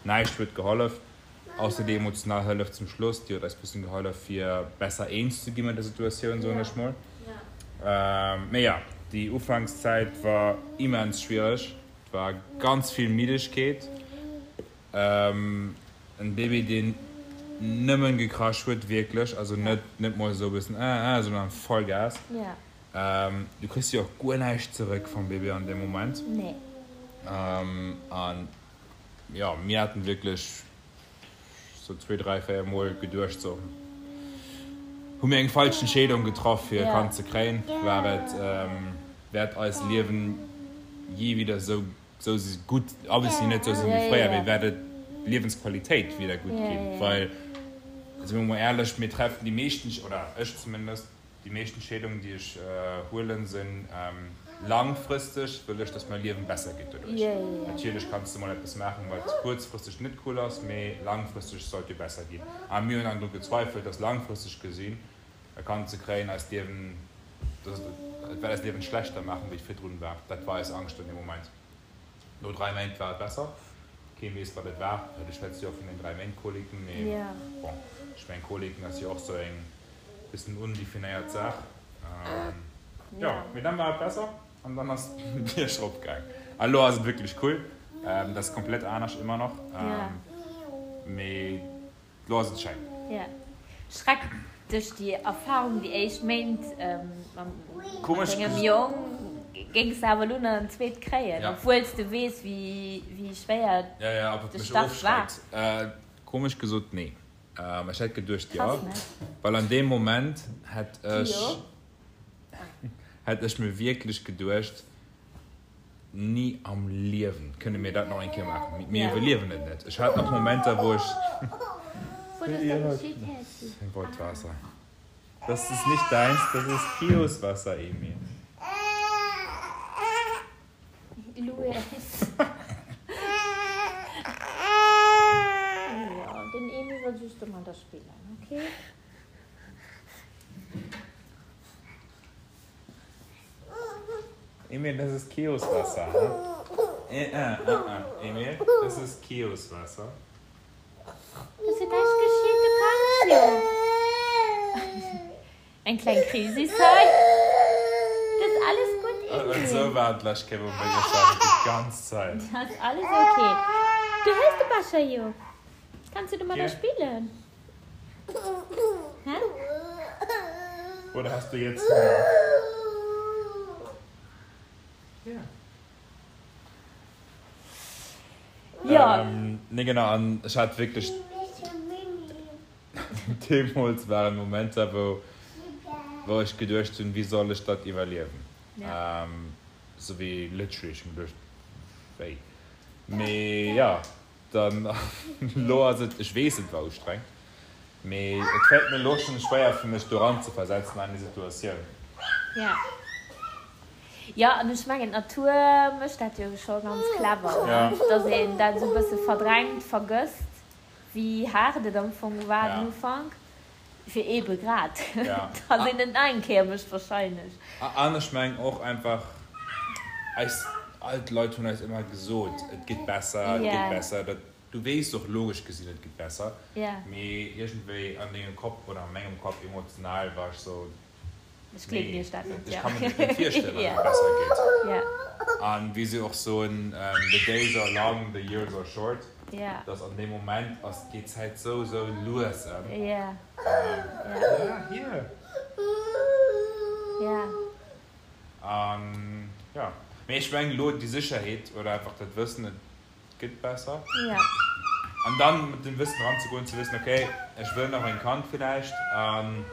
Näischt huet gehollef. Ausser déi emotional Hëllef zum Schluss, déi huet eis bëssen gehollef fir besser eens ze gi mat der Situatioun, soen ech mol. Mee jo, déi Ufankszäit war immens schwiereg. Et war ganz vill Middegkeet, en Bébé deen nëmmen gekrasch huet, wierklech, also net net mol esou e bëssen äh äh, sondern Vollgas. Du kriss jo och guer näischt zeréck vum Bébé an deem Moment. An Jo, mir haten wierklech sou zwee, dräi, véier Mol geduecht, sou, hu mir eng falsch Entscheedung getraff fir e Kand ze kréien? War et, wäert eist Liewen jee wieder sou, sou gutt, obviously net sou sinn wéi fréier, mee wäert et d'Liewensqualitéit wieder gutt ginn? Well, si mer mol éierlech, mir treffen déi meeschten, oder ech zumindest, Déi meescht Entscheedungen, déi ech huelen, sinn langfristeg, wëll ech, dass mäi Liewen besser geet doduerch. Natierlech kanns de mol eppes maachen, wat kuerzfristeg net cool ass, mee langfristeg sollt jo besser ginn. A mir hunn dann dru gezweifelt, dass langfristeg gesinn e Kand ze kréien eist Liewen, dass et wäert eist Liewen schlechter maachen, wéi et virdrun war. Dat war eis Angscht an deem Moment. No 3 Méint war et besser. Kee weess, wat et war. Ech schwätze jo och vun den 3 Méint Koliken, mee bon, ech mengen Koliken ass jo och sou eng Bëssen undefinéiert Saach. Jo, mee dann war et besser an dann ass d'Bierg rop gaang. An elo ass et wierklech cool. Dat ass komplett anescht ëmmer nach, mee elo ass et schéin. Jo. Schreckt dech déi Erfahrung déi éischt Méint mam dengem Jong? Géings de awer elo nach en zweet kréien, obwuel s de weess wéi schwéier de Start war? Komesch gesot, nee. Ech hätt geduecht jo, well an deem Moment hätt ech hätt ech mir wierklech geduecht, ni am Liewen kënne mir dat nach eng Kéier maachen, mir iwwerliewen et net. Ech hat nach Momenter wou ech. Wollt Waasser. Das ist nicht deins, das ist Kios Wasser, Emil. Lues. Jo, den Emil wëll just domadder spillen, ok? Emil, das ist Kios Wasser, hä? Äh, äh, äh, Emil, das ist Kios Wasser. Ass jo näischt geschitt, du kanns jo. Eng kleng Krisis hei. Dat ass alles gutt, Emil. Esou war et d'lescht Kéier, wou mir geschwat hunn, déi ganz Zäit. Dat ass alles ok. Du hues de Becher jo. Kanns du domadder spillen? Hä? Oder hast du jetzt Hunger? Ja. Jo. Nee, genau, an ech hat wierklech. Deemools waren Momenter, wou, wou ech geduecht hunn, wéi soll ech dat iwwerliewen? Sou wéi literally, ech hunn geduecht, wéi? Mee jo, dann elo ass et, ech weess, et war ustrengend, mee et fält mir elo schonn schwéier fir mech do eranzeversetzen an déi Situatioun. Ja. Jo, an ech mengen, d'Natur mécht dat jo scho ganz clever, ne? Dass een dat esou e bësse verdrängt, vergësst. Wéi haart et am Fong war den Ufank, fir eebe grad, dass een et nach eng Kéier mécht wahrscheinlech. An ech mengen och einfach, eis all d'Leit hunn eis ëmmer gesot, et geet besser, et geet besser. Dat, du weess och logesch gesinn, et geet besser, mee iergendwéi an dengem Kopp oder a mengem Kopp emotional war ech sou, Ech gleewen iech dat net. Ech ka mir dat net virstellen, datt et besser geet. An wéi se och soen, the days are long, the years are short, dass an deem Moment ass, geet d'Zäit sou, sou lues ëm. Ja, hier. An jo, mee ech mengen elo déi Sécherheet oder einfach dat Wëssen, et gëtt besser. An dann mat dem Wëssen eranzegoen, ze wëssen, okay, ech wëll nach en Kand villäicht. An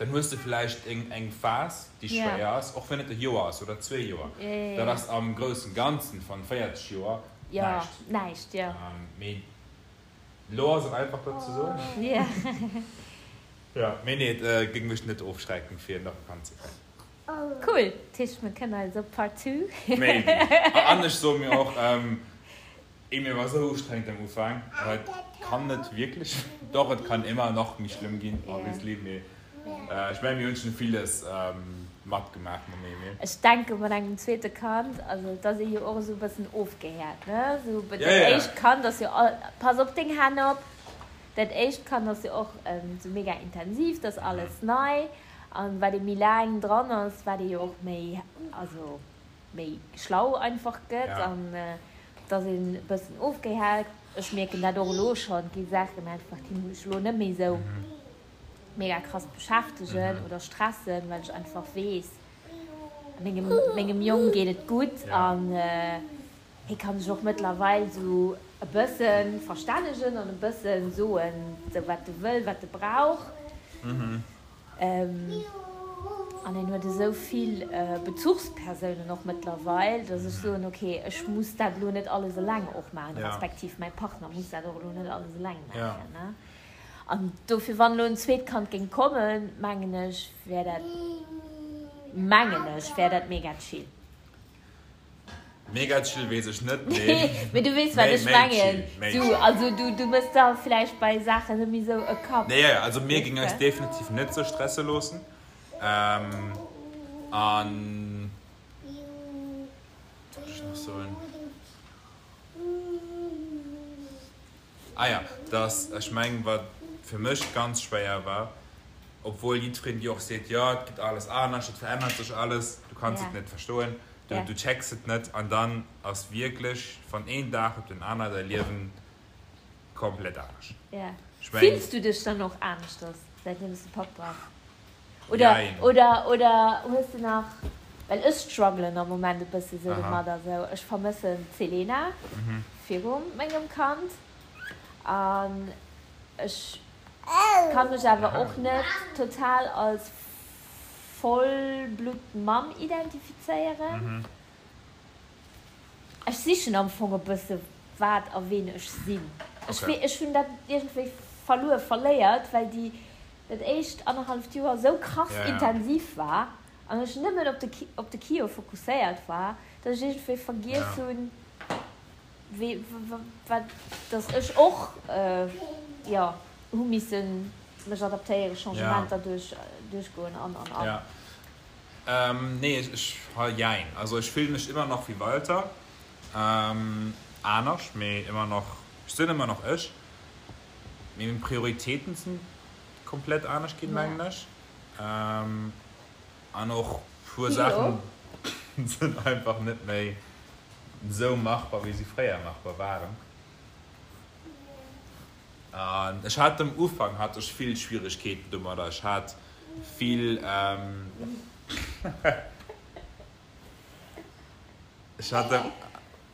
Dann hues de vläicht eng Phas, déi schwéier ass, och wann et e Joer ass oder zwee Joer. Dat ass am groussen Ganzen van 40 Joer näischt. Mee elo ass et einfach dat ze soen. Jo, mee nee, et géing mech net ofschrecken, fir nach e Kand ze kréien. Cool, dat heescht mir kënnen eis op Part 2. Maybe. An ech soe mir och, Emil war sou ustrengend am Ufank, awer et kann net wierklech, doch et kann ëmmer nach méi schlëmm ginn obviously, mee ech mengen mir hunn schonn villes matgemaach mam Emil. Ech denke mat engem zweete Kand, also et ass ee jo och esou e bëssen ofgehäert, ne, sou dat éischt Kand ass jo all, pass op deng Hänn op, dat éischt Kand ass jo och sou mega intensiv, dat ass alles nei an wat ee méi laang dran ass, wat ee jo och méi, also méi schlau einfach gëtt an dass een e bëssen ofgehält. Ech mierken dat och elo schonn, et gi Saachen einfach, déi mech elo net méi esou mega krass beschäftegen oder stressen, well ech einfach weess, mengem mengem Jong geet et gutt an hie ka sech och mëttlerweil esou. E bësse verstännegen an e bësse soen, sou wat e wëll, wat e brauch. An en huet esou vill Bezuchspersounen och mëttlerweil, datt ech soen, ok, ech muss dat elo net alles eleng och maachen, respektiv mäi Partner muss dat och elo net alles eleng maachen. An dofir, wann elo en zweet Kand géing kommen, mengen ech, wär dat, mengen ech, wär dat mega chill. Mega chill weess ech net, mee. Mee du weess wat ech mengen. Du, also du, du mëss der vläicht bei Saachen net méi sou e Kapp. Nee, jo, also mir géing eis definitiv net sou stresse loossen. An, wat wollt ech nach soen? Ah ja, dass, ech mengen, wat fir mech ganz schwéier war, obwuel jiddwereen dir och seet, jo, et gëtt alles anescht, et verännert sech alles, du kanns et net verstoen, du, du checks et net an dann ass wierklech van een Dag op den aner däi Liewen komplett anescht. Ech mengen. Fills du dech dann och aneschters, säitdeem s de Papp bass? Oder, oder, oder hues de nach, well ech struggelen am Moment e bësse sou domadder, sou ech vermëssen d'Selena viru mengem Kand an ech ka mech awer och net total als Vollbluttmamm identifizéieren. Ech sichen am Fong e bësse wat a ween ech sinn. Ech, ech hunn dat iergendwéi verluer, verléiert, well déi dat éischt annerhalleft Joer esou krass intensiv war an ech nëmmen op de op de Kio fokusséiert war, datt ech iergendwéi vergiess hunn, wéi wat datt ech och jo hu missen mech adaptéieren, Changementer duerch duerchgoen an an an. Jo, nee ech jein, also ech fillen mech ëmmer nach wéi Walter, anescht, mee ëmmer nach, ech sinn ëmmer nach ech. Mee meng Prioritéiten sinn komplett anescht ginn, mengen ech. An och puer Saachen sinn einfach net méi esou machbar, wéi si fréier machbar waren. An ech hat am Ufank hat ech vill Schwieregkeeten domadder. Ech hat vill, ech hat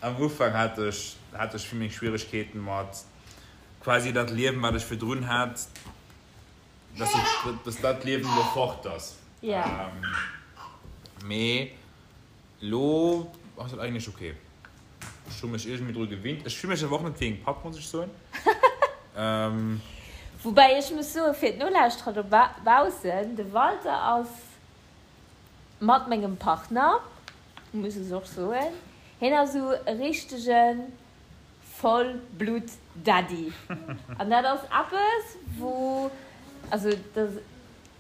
am Ufank hat ech hat ech vill méi Schwieregkeeten mat quasi dat Liewen, wat ech virdrun hat, dass ech, dass dat Liewen elo fort ass. Ja. Mee elo ass et eigentlech ok. Ech hu mech iergendwéi dru gewinnt. Ech fille mech awer och net wéi eng Papp, muss ech soen. Woubäi ech muss soen, fir d'Nolauschterer dobaussen, de Walter ass mat mengem Partner, muss ech och soen, hien ass esou e richtegen Vollblutt-Daddy. An dat ass eppes, wou, also dat ass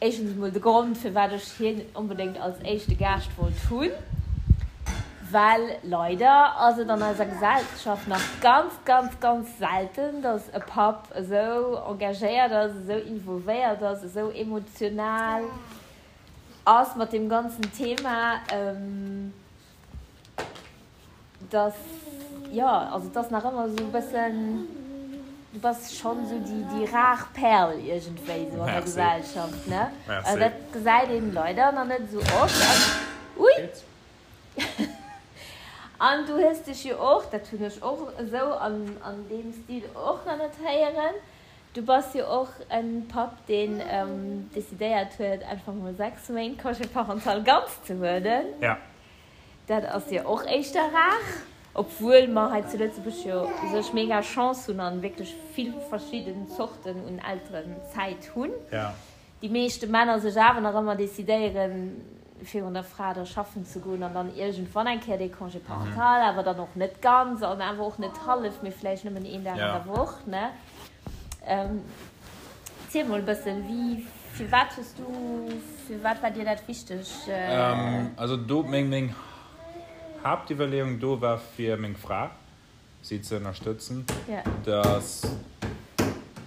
éischtens emol de Grond, firwat ech hien onbedéngt als éischte Gaascht wollt hunn, well leider ass et an eiser Gesellschaft nach ganz, ganz, ganz selten, dass e Papp esou engagéiert ass, esou involvéiert ass, esou emotional ass mat deem ganzen Thema. Dass, jo, also et ass nach ëmmer esou e bëssen, du bass schonn esou déi, déi rar Perl iergendwéi esou an der Gesellschaft, ne? Also dat gesäit een leider nach net esou oft. An, ui! An du hues dech jo och, dat hunn ech och esou an, an deem Stil och nach net héieren, du bass jo och e Papp, deen decidéiert huet, einfach mol 6 Méint Congé parental ganz ze huelen. Dat ass jo och éischter rar, obwuel mer hei zu Lëtzebuerg jo u sech mega Chance hunn an wierklech vill verschidden Zorten un Elterenzäit hunn. Déi meeschte Männer sech awer nach ëmmer decidéieren, virun der Fra da schaffen ze goen an dann iergendwann eng Kéier dee Congé parental, awer dann och net ganz an awer och net hallef, mee vläicht nëmmen een Dag an der Woch, ne? Ziel mol e bëssen, wéi, firwat hues du, firwat war dir dat wichteg? Also do, meng, meng Haaptiwwerleeung do war fir meng Fra, si ze ënnerstëtzen, dass,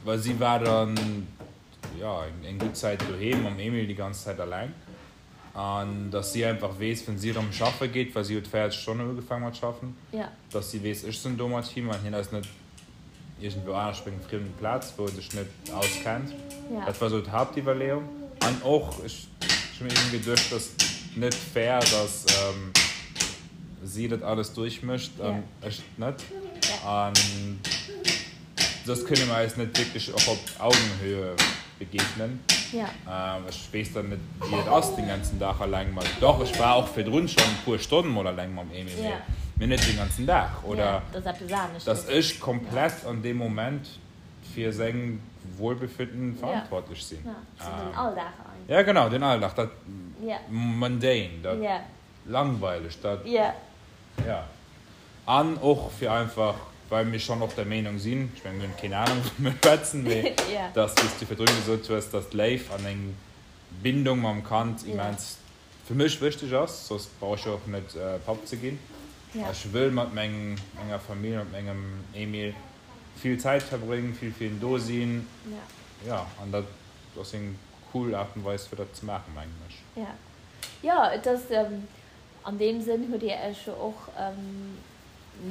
well si war dann, jo, eng gutt Zäit doheem mam Emil déi ganz Zäit alleng an dass si einfach weess, wann si erëm schaffe geet, well si huet 40 Stonnen ugefaangen mat schaffen, dass si weess, ech sinn do mat him an hien ass net iergendwou anescht op engem friemen Plaz, wou en sech net auskennt. Dat war esou d'Haaptiwwerleeung. An och, ech hu mir iergendwéi geduecht, dass net fair, dass si dat alles duerchmécht an ech net. An soss kënne mer eis net wierklech och op Augenhöhe begegnen. Ech weess dann net, wéi et ass, den ganzen Dag alleng mat, doch, ech war och virdrun schonn e puer Stonnen mol alleng mam Emil, mee mee net den ganzen Dag. Oder dass ech komplett an deem Moment fir seng Wohlbefinden verantwortlech sinn. Ja, genau, den Alldag, dat mundane, dat langweileg, dat, ja. An och fir einfach, well mir schonn och der Meenung sinn, ech mengen, mir hunn keen Anung wou mir schwätzen, mee dass, wéi s du virdrun gesot hues, dass d'Léif an eng Bindung mam Kand immens fir mech wichteg ass, soss brauch ech jo och net Papp ze ginn. Ech wëll mat menger Famill, mat mengem Emil vill Zäit verbréngen, vill fir hien do sinn, jo, an dat ass eng cool Aart an Weis fir dat ze maachen, mengen ech. Jo, et ass An deem Sënn hutt Dir Iech jo och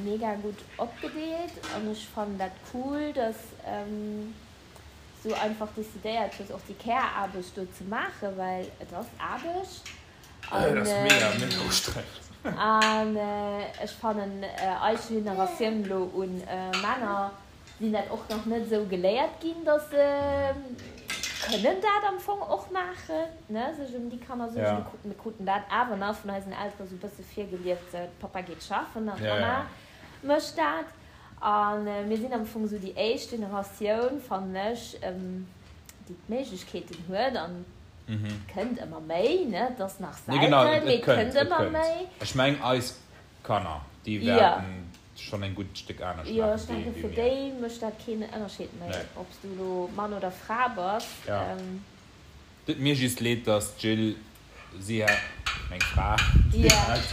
mega gutt opgedeelt an ech fannen dat cool, dass s du einfach decidéiert hues och déi Care-Aarbecht do ze maachen, well et ass Aarbecht. Et ass mega, mega ustrengend. An ech fannen eis Generatioun elo un Männer sinn dat och nach net esou geléiert ginn, dass se kënnen dat am Fong och maachen, ne, sech ëm déi Kanner suergen. Ja. Mir kruten dat awer nach vun eisen Eltere sou e bësse virgelieft, sou, Papa geet schaffen an d'Mama mécht dat. A mir sinn am Fong sou déi éischt Generatioun, fannen ech, déi d'Méiglechkeeten huet an et kënnt ëmmer méi, ne, et ass nach selten, mee et kënnt ëmmer méi. Ech meng eis Kanner, déi wäerten schonn en gutt Stéck anescht maachen. Jo, ech denken, fir déi mécht dat keen Ënnerscheed méi, ob s du elo Mann oder Fra bass. Jo. Deet mir just leed, dass d'Jill, si hat, meng Fra, si hat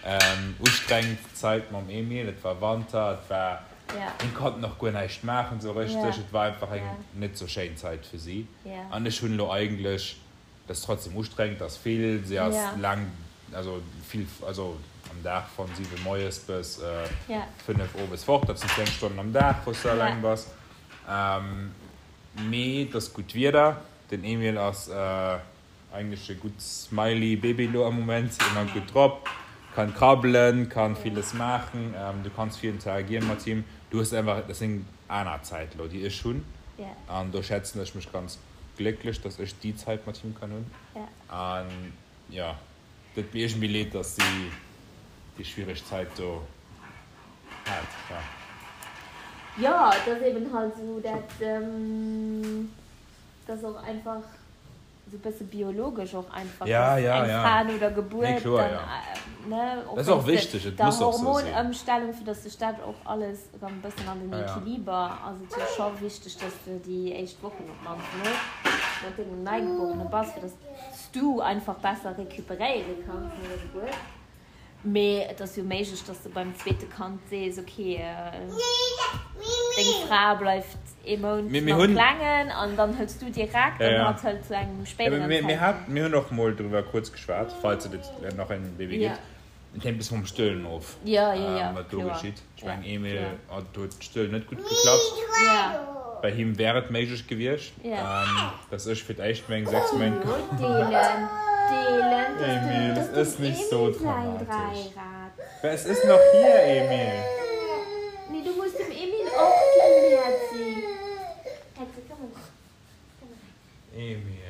eng ustrengend Zäit mam Emil. Et war Wanter, et war, hien konnt nach guer näischt maachen esou richteg. Et war einfach eng net sou schéin Zäit fir si. An ech hunn elo eigentlech Et ass trotzdem ustrengend, et ass vill, si ass laang, also vill, also am Dag von 7 moies bis 5 owes fort, dat sinn 10 Stonnen am Dag, wou s du alleng bass. Mee et ass gutt Wieder, den Emil ass eigentlech e gutt smiley Baby elo am Moment, ëmmer gutt drop, kann krabbelen, kann villes maachen, du kanns vill interagieren mat him, du hues einfach, dat ass eng aner Zäit elo, déi ech hunn an do schätzen ech mech ganz glécklech, dass ech déi Zait mat him kann hunn. An jo, et deet mir iergendwéi leed, dass si déi schwiereg Zait do hat. Jo. Jo, et ass eben halt esou, dat ass och einfach esou bësse biologesch och einfach, dass eng Fra no der Gebuert dann, ne, och wéinst der Hormonëmstellung, fir dass sech dat och alles erëm e bëssen an den Equiliber, ass et jo scho wichteg, dass de déi éischt Wochen op d'mannst mol mat dengem Neigeborene bass, fir dass s du einfach besser recuperéiere kanns no der Gebuert. Mee et ass jo méiglech, dass de beim zweete Kand sees, ok, deng Fra bleift ee Mount mam Klengen an dann hëls du direkt an hatt hëlt zu engem spéideren Zäitpunkt. Mir hunn och mol driwwer kuerz geschwat, falls et nach en Baby gëtt. Et hänkt e bësse vum Stëllen of, wat do geschitt. Ech mengen, Emil, do huet d'Stëllen net gutt geklappt. Bei him wär et méiglech gewiescht, dass ech fir d'éischt meng 6 Méint. Emil, es ist nicht so dramatisch. Es ist noch hier, Emil. Emil.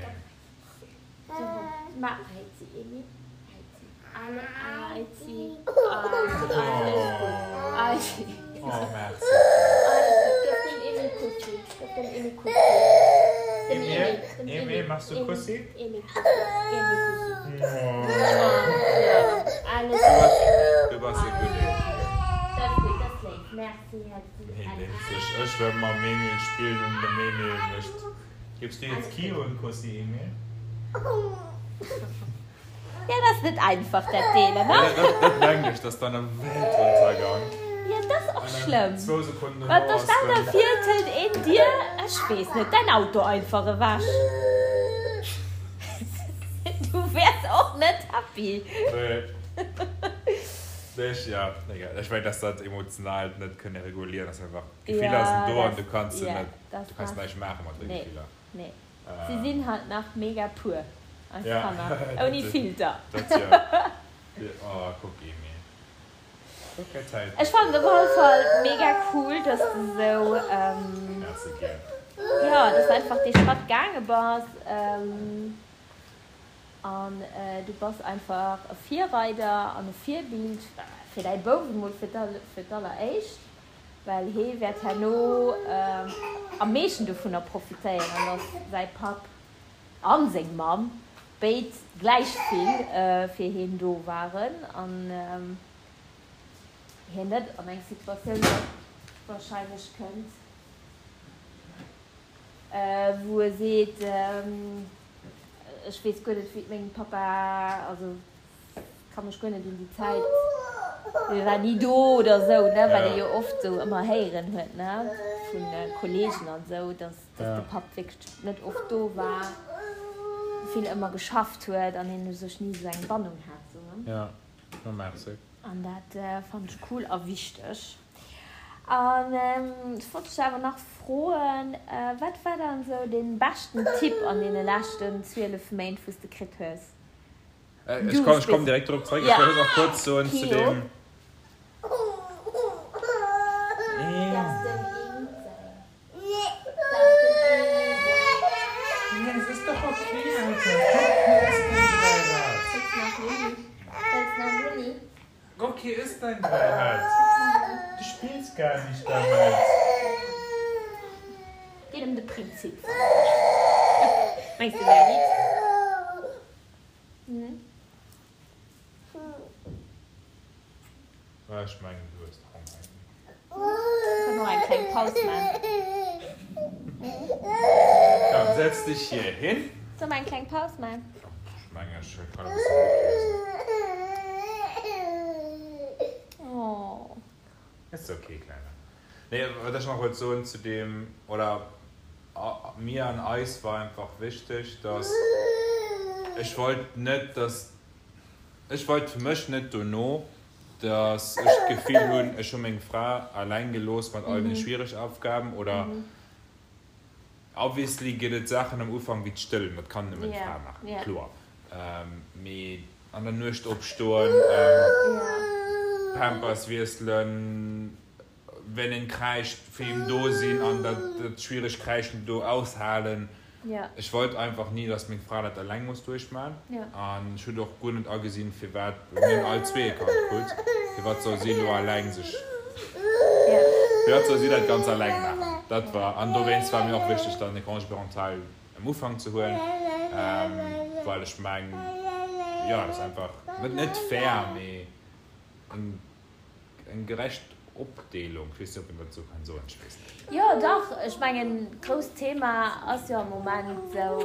Oh, merci. Emil, Emil, machst du Kussi? Du bass e gudde. Hien denkt sech, ech wëll mam Emil spillen an dem Emil mécht. Gibst du jetzt Kio en Kussi, Emil? Ja, dat ass net einfach, dat Deelen, ne? Ja, dat mengen ech, dat ass dann e Weltuntergang. Ja, dat ass och schlëmm. Zwou Sekonnen dono ass den. Stell der vir, et hëlt een dir, ech weess net, däin Auto einfach ewech. Du wäers och net happy. Nee. Nee, ech, ja, egal. Ech mengen, dass dat Emotionaalt net kënne regulieren ass einfach, d'Gefiller sinn do an du kanns se net, du kanns näischt maache mat de Gefiller. Nee. Si sinn halt nach mega pur, eis Kanner, ouni Filter. Dat jo. Oh, kuck, Emil. Ech fannen et op alle Fall mega cool, dass de sou, jo, dass de einfach dee Schratt gaange bass an du bass einfach e Virreider an e Virbild fir däi Bouf emol fir d'alleréischt, well hee wäert herno am meeschten dovunner profitéieren, dass säi Papp an seng Mamm béid gläich vill fir heen do waren an hien net an eng Situatioun wahrscheinlech kënnt, wou e seet, ech weess guer net wéi et mengem Papa, also ka mech guer net un déi Zäit, hie war ni do oder esou, ne, wat ee jo oft esou ëmmer héieren huet, ne, vu Kollegen an esou, dass. Dass de Papp wierklech net oft do war, vill ëmmer geschafft huet an een u sech ni esou eng Bannung hat. Sou, ne? Ja, no merci. An dat fannen ech cool a wichteg. An ech wollt dech awer nach froen, wat war dann esou dee beschten Tipp an deene leschten 12 Méint, wou s de kritt hues? Ech komm, ech komm direkt dorop zeréck. Ech wëll nach kuerz soen zu deem. Rocky ist dein Dreirad. Du spillst gar nicht damit. Geet ëm de Prinzip. Mengs du wär nit? Ech mengen du hues Honger. Kënnen och eng kleng Paus man. Komm, setz dich hier hin. Soll mer eng kleng Paus man? Ech mengen ech kann e bëssen Buch liesen. Oh. Ist okay, Kleiner. Nee, wat ech nach wollt soen zu deem, oder mir an eis war einfach wichteg, dass ech wollt net, dass, ech wollt fir mech net dono, dass ech d'Gefill hunn, ech hu meng Fra alleng gelooss mat all den schwiereg Aufgaben oder obviously gëtt et Saachen am Ufank wéi d'Stëllen, dat kann nëmmen d'Fra maachen, kloer, mee an der Nuecht opstoen, Pampers wiesselen, wenn en kräischt fir him do sinn an dat schwieregt Kräischen do aushalen. Ech wollt einfach ni, dass meng Fra dat eleng muss duerchman an ech hunn och guer net agesinn, firwat, mir hunn all zwee e Kand krut, firwat soll si elo eleng sech, firwat soll si dat ganz eleng maachen. Dat war, an dowéinst war mir och wichteg dann e Congé parental am Ufank ze huelen, well ech mengen, jo, dat ass einfach net fair, mee eng. Eng gerecht Opdeelung, ech weess net, ob een dat esou kann soen, ech weess net. Jo, dach, ech mengen, d'grousst Thema ass jo am Moment esou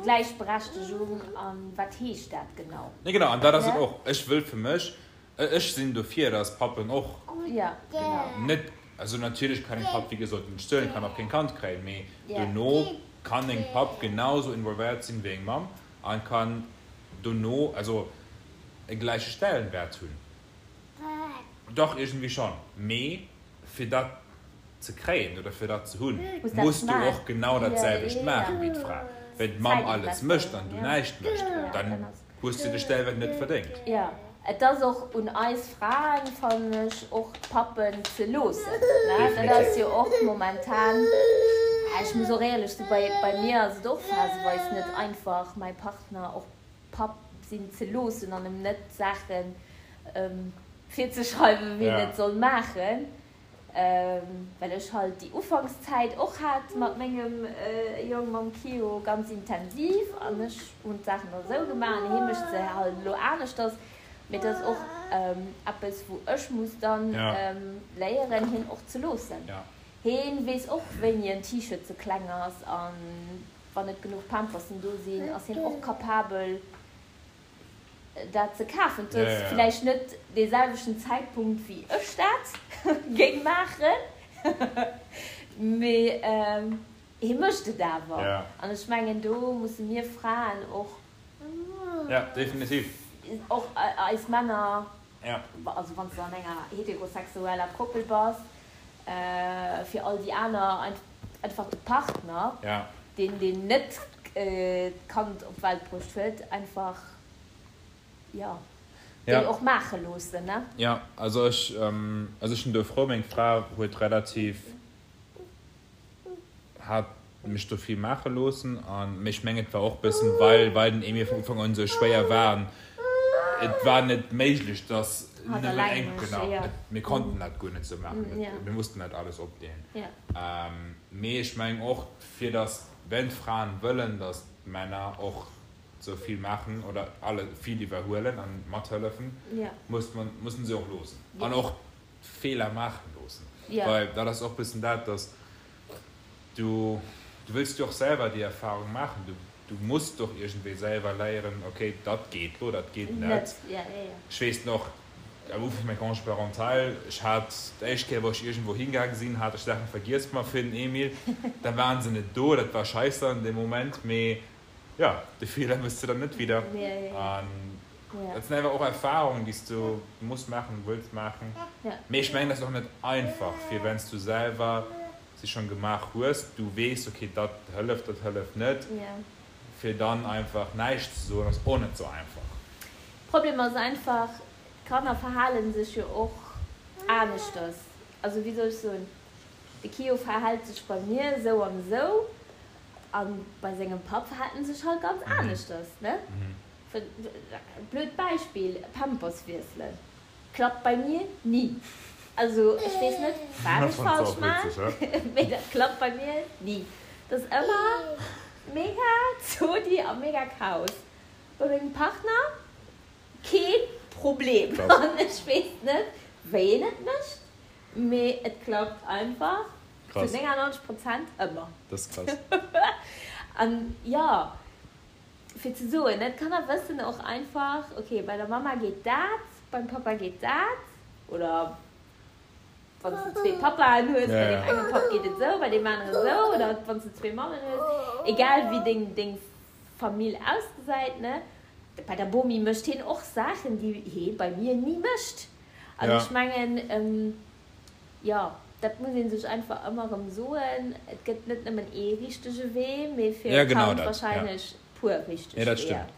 Gläichberechtegung an wat heescht dat genau? Nee, genau, an dat ass et och. Ech wëll fir mech, ech sinn dofir, dass Pappen och net, also natierlech kann eng Papp, wéi gesot, net stëllen, kann och keng Kand kréien, mee dono kann eng Papp genau esou involvéiert sinn wéi eng Mamm an kann dono, also e gläiche Stellenwert hunn. Dach, iergendwéi schonn. Mee fir dat ze kréien oder fir dat ze hunn, muss du och genau dat selwecht maachen wéi d'Fra. Wenn d'Mamm alles mécht an du näischt mécht, dann hues du de Stellwäert net verdéngt. Jo, et ass och un eis Fraen, fannen ech, och d'Pappen ze loossen. Dat ass jo och momentan, ech muss och éierlech soen, bei mir ass et och phaseweis net einfach, mäi Partner och Papp sinn ze loossen an em net Saachen virzeschreiwen, wéi en et soll maachen, well ech halt déi Ufankszäit och hat mat mengem Jong, mam Kio, ganz intensiv an ech hunn d'Saachen da sou gemaach an hie mécht se halt elo aneschters. Mee dat ass och eppes, wou ech muss dann léieren, hien och ze loossen. Hien weess och, wéini en T-Shirt ze kleng ass an Wann net genuch Pampersen do sinn, ass hien och capabel dat ze kafen. Et ass villäicht net dee selwechten Zäitpunkt wéi ech dat géing maachen, mee hie mécht et awer. An ech mengen do musse mir Fraen och och eis Männer, also wann s de an enger heterosexueller Koppel bass, fir all déi aner einfach de Partner, deen deen net d'Kand op d'Welt bruecht huet, einfach, jo. Déi och maache loossen, ne? Jo, also ech, also ech sinn do frou, meng Fra huet relativ, hat mech do vill maache loossen an, mee ech mengen et war och bëssen, well, well den Emil vun Ufank un esou schwéier war an et war net méiglech, dass nëmmen eng, genau, et, mir konnten dat guer net esou maachen, et, mir mussten dat alles opdeelen. Mee ech mengen och, fir dass, wenn d'Fraen wëllen, dass d'Männer och sou vill maachen oder alle vill iwwerhuelen an mathëllefen, muss man, mussen se och loossen an och Feeler maachen loossen, well dat ass och bëssen dat, dass du, du wëlls jo och selwer déi Erfahrung maachen, du, du muss doch iergendwéi selwer léieren, okay, dat geet lo, dat geet net. Ech weess nach, am Ufank vun mengem Congé parental, ech hat d'éischt Kéier, wou ech iergendwou hingaange sinn, hat ech Saache vergiess mat fir den Emil, da waren se net do, dat war scheisse an deem Moment, mee Jo, de Feeler mëss de dann net wieder. An dat sinn einfach och Erfahrungen, déi s du muss maachen, wëlls maachen. Mee ech mengen, dat ass och net einfach, fir wenn s du selwer se schonn gemaach hues, du weess, okay, dat hëlleft, dat hëlleft net, fir dann einfach näischt ze soen, ass och net esou einfach. Problem ass einfach, d'Kanner verhale sech jo och aneschters. Also wéi soll ech soen, de Kio verhält sech bei mir esou an esou An bei sengem Papp verhält en sech halt ganz aneschters, ne? Blöd Beispill, Pampers wiesselen klappt bei mir ni. Also ech weess net wat ech falsch maan, mee dat klappt bei mir ni. Dat ass ëmmer mega Zodi a mega Chaos. Bei mengem Partner kee Problem. An ech weess net wéi en et mécht, mee et klappt einfach. Krass. Zu 99 Prozent ëmmer. Dat ass krass. An jo, fir ze soen, ne, d'Kanner wëssen och einfach, ok, bei der Mamma geet dat, beim Pappa geet dat, oder wann s de zwee Pappaen hues, bei deem enge Papp geet et esou, bei deem aneren esou, oder wann s de zwee Mammen hues, egal wéi deng, deng Famill ausgesäit, ne, bei der Bomi mécht hien och Saachen, déi hee bei mir ni mécht. An ech mengen, Jo, dat muss ee sech einfach ëmmer erëm soen, et gëtt net nëmmen ee richtege Wee, mee fir e Kand warscheinlech puer richteg Weeër. Ja, dat stëmmt.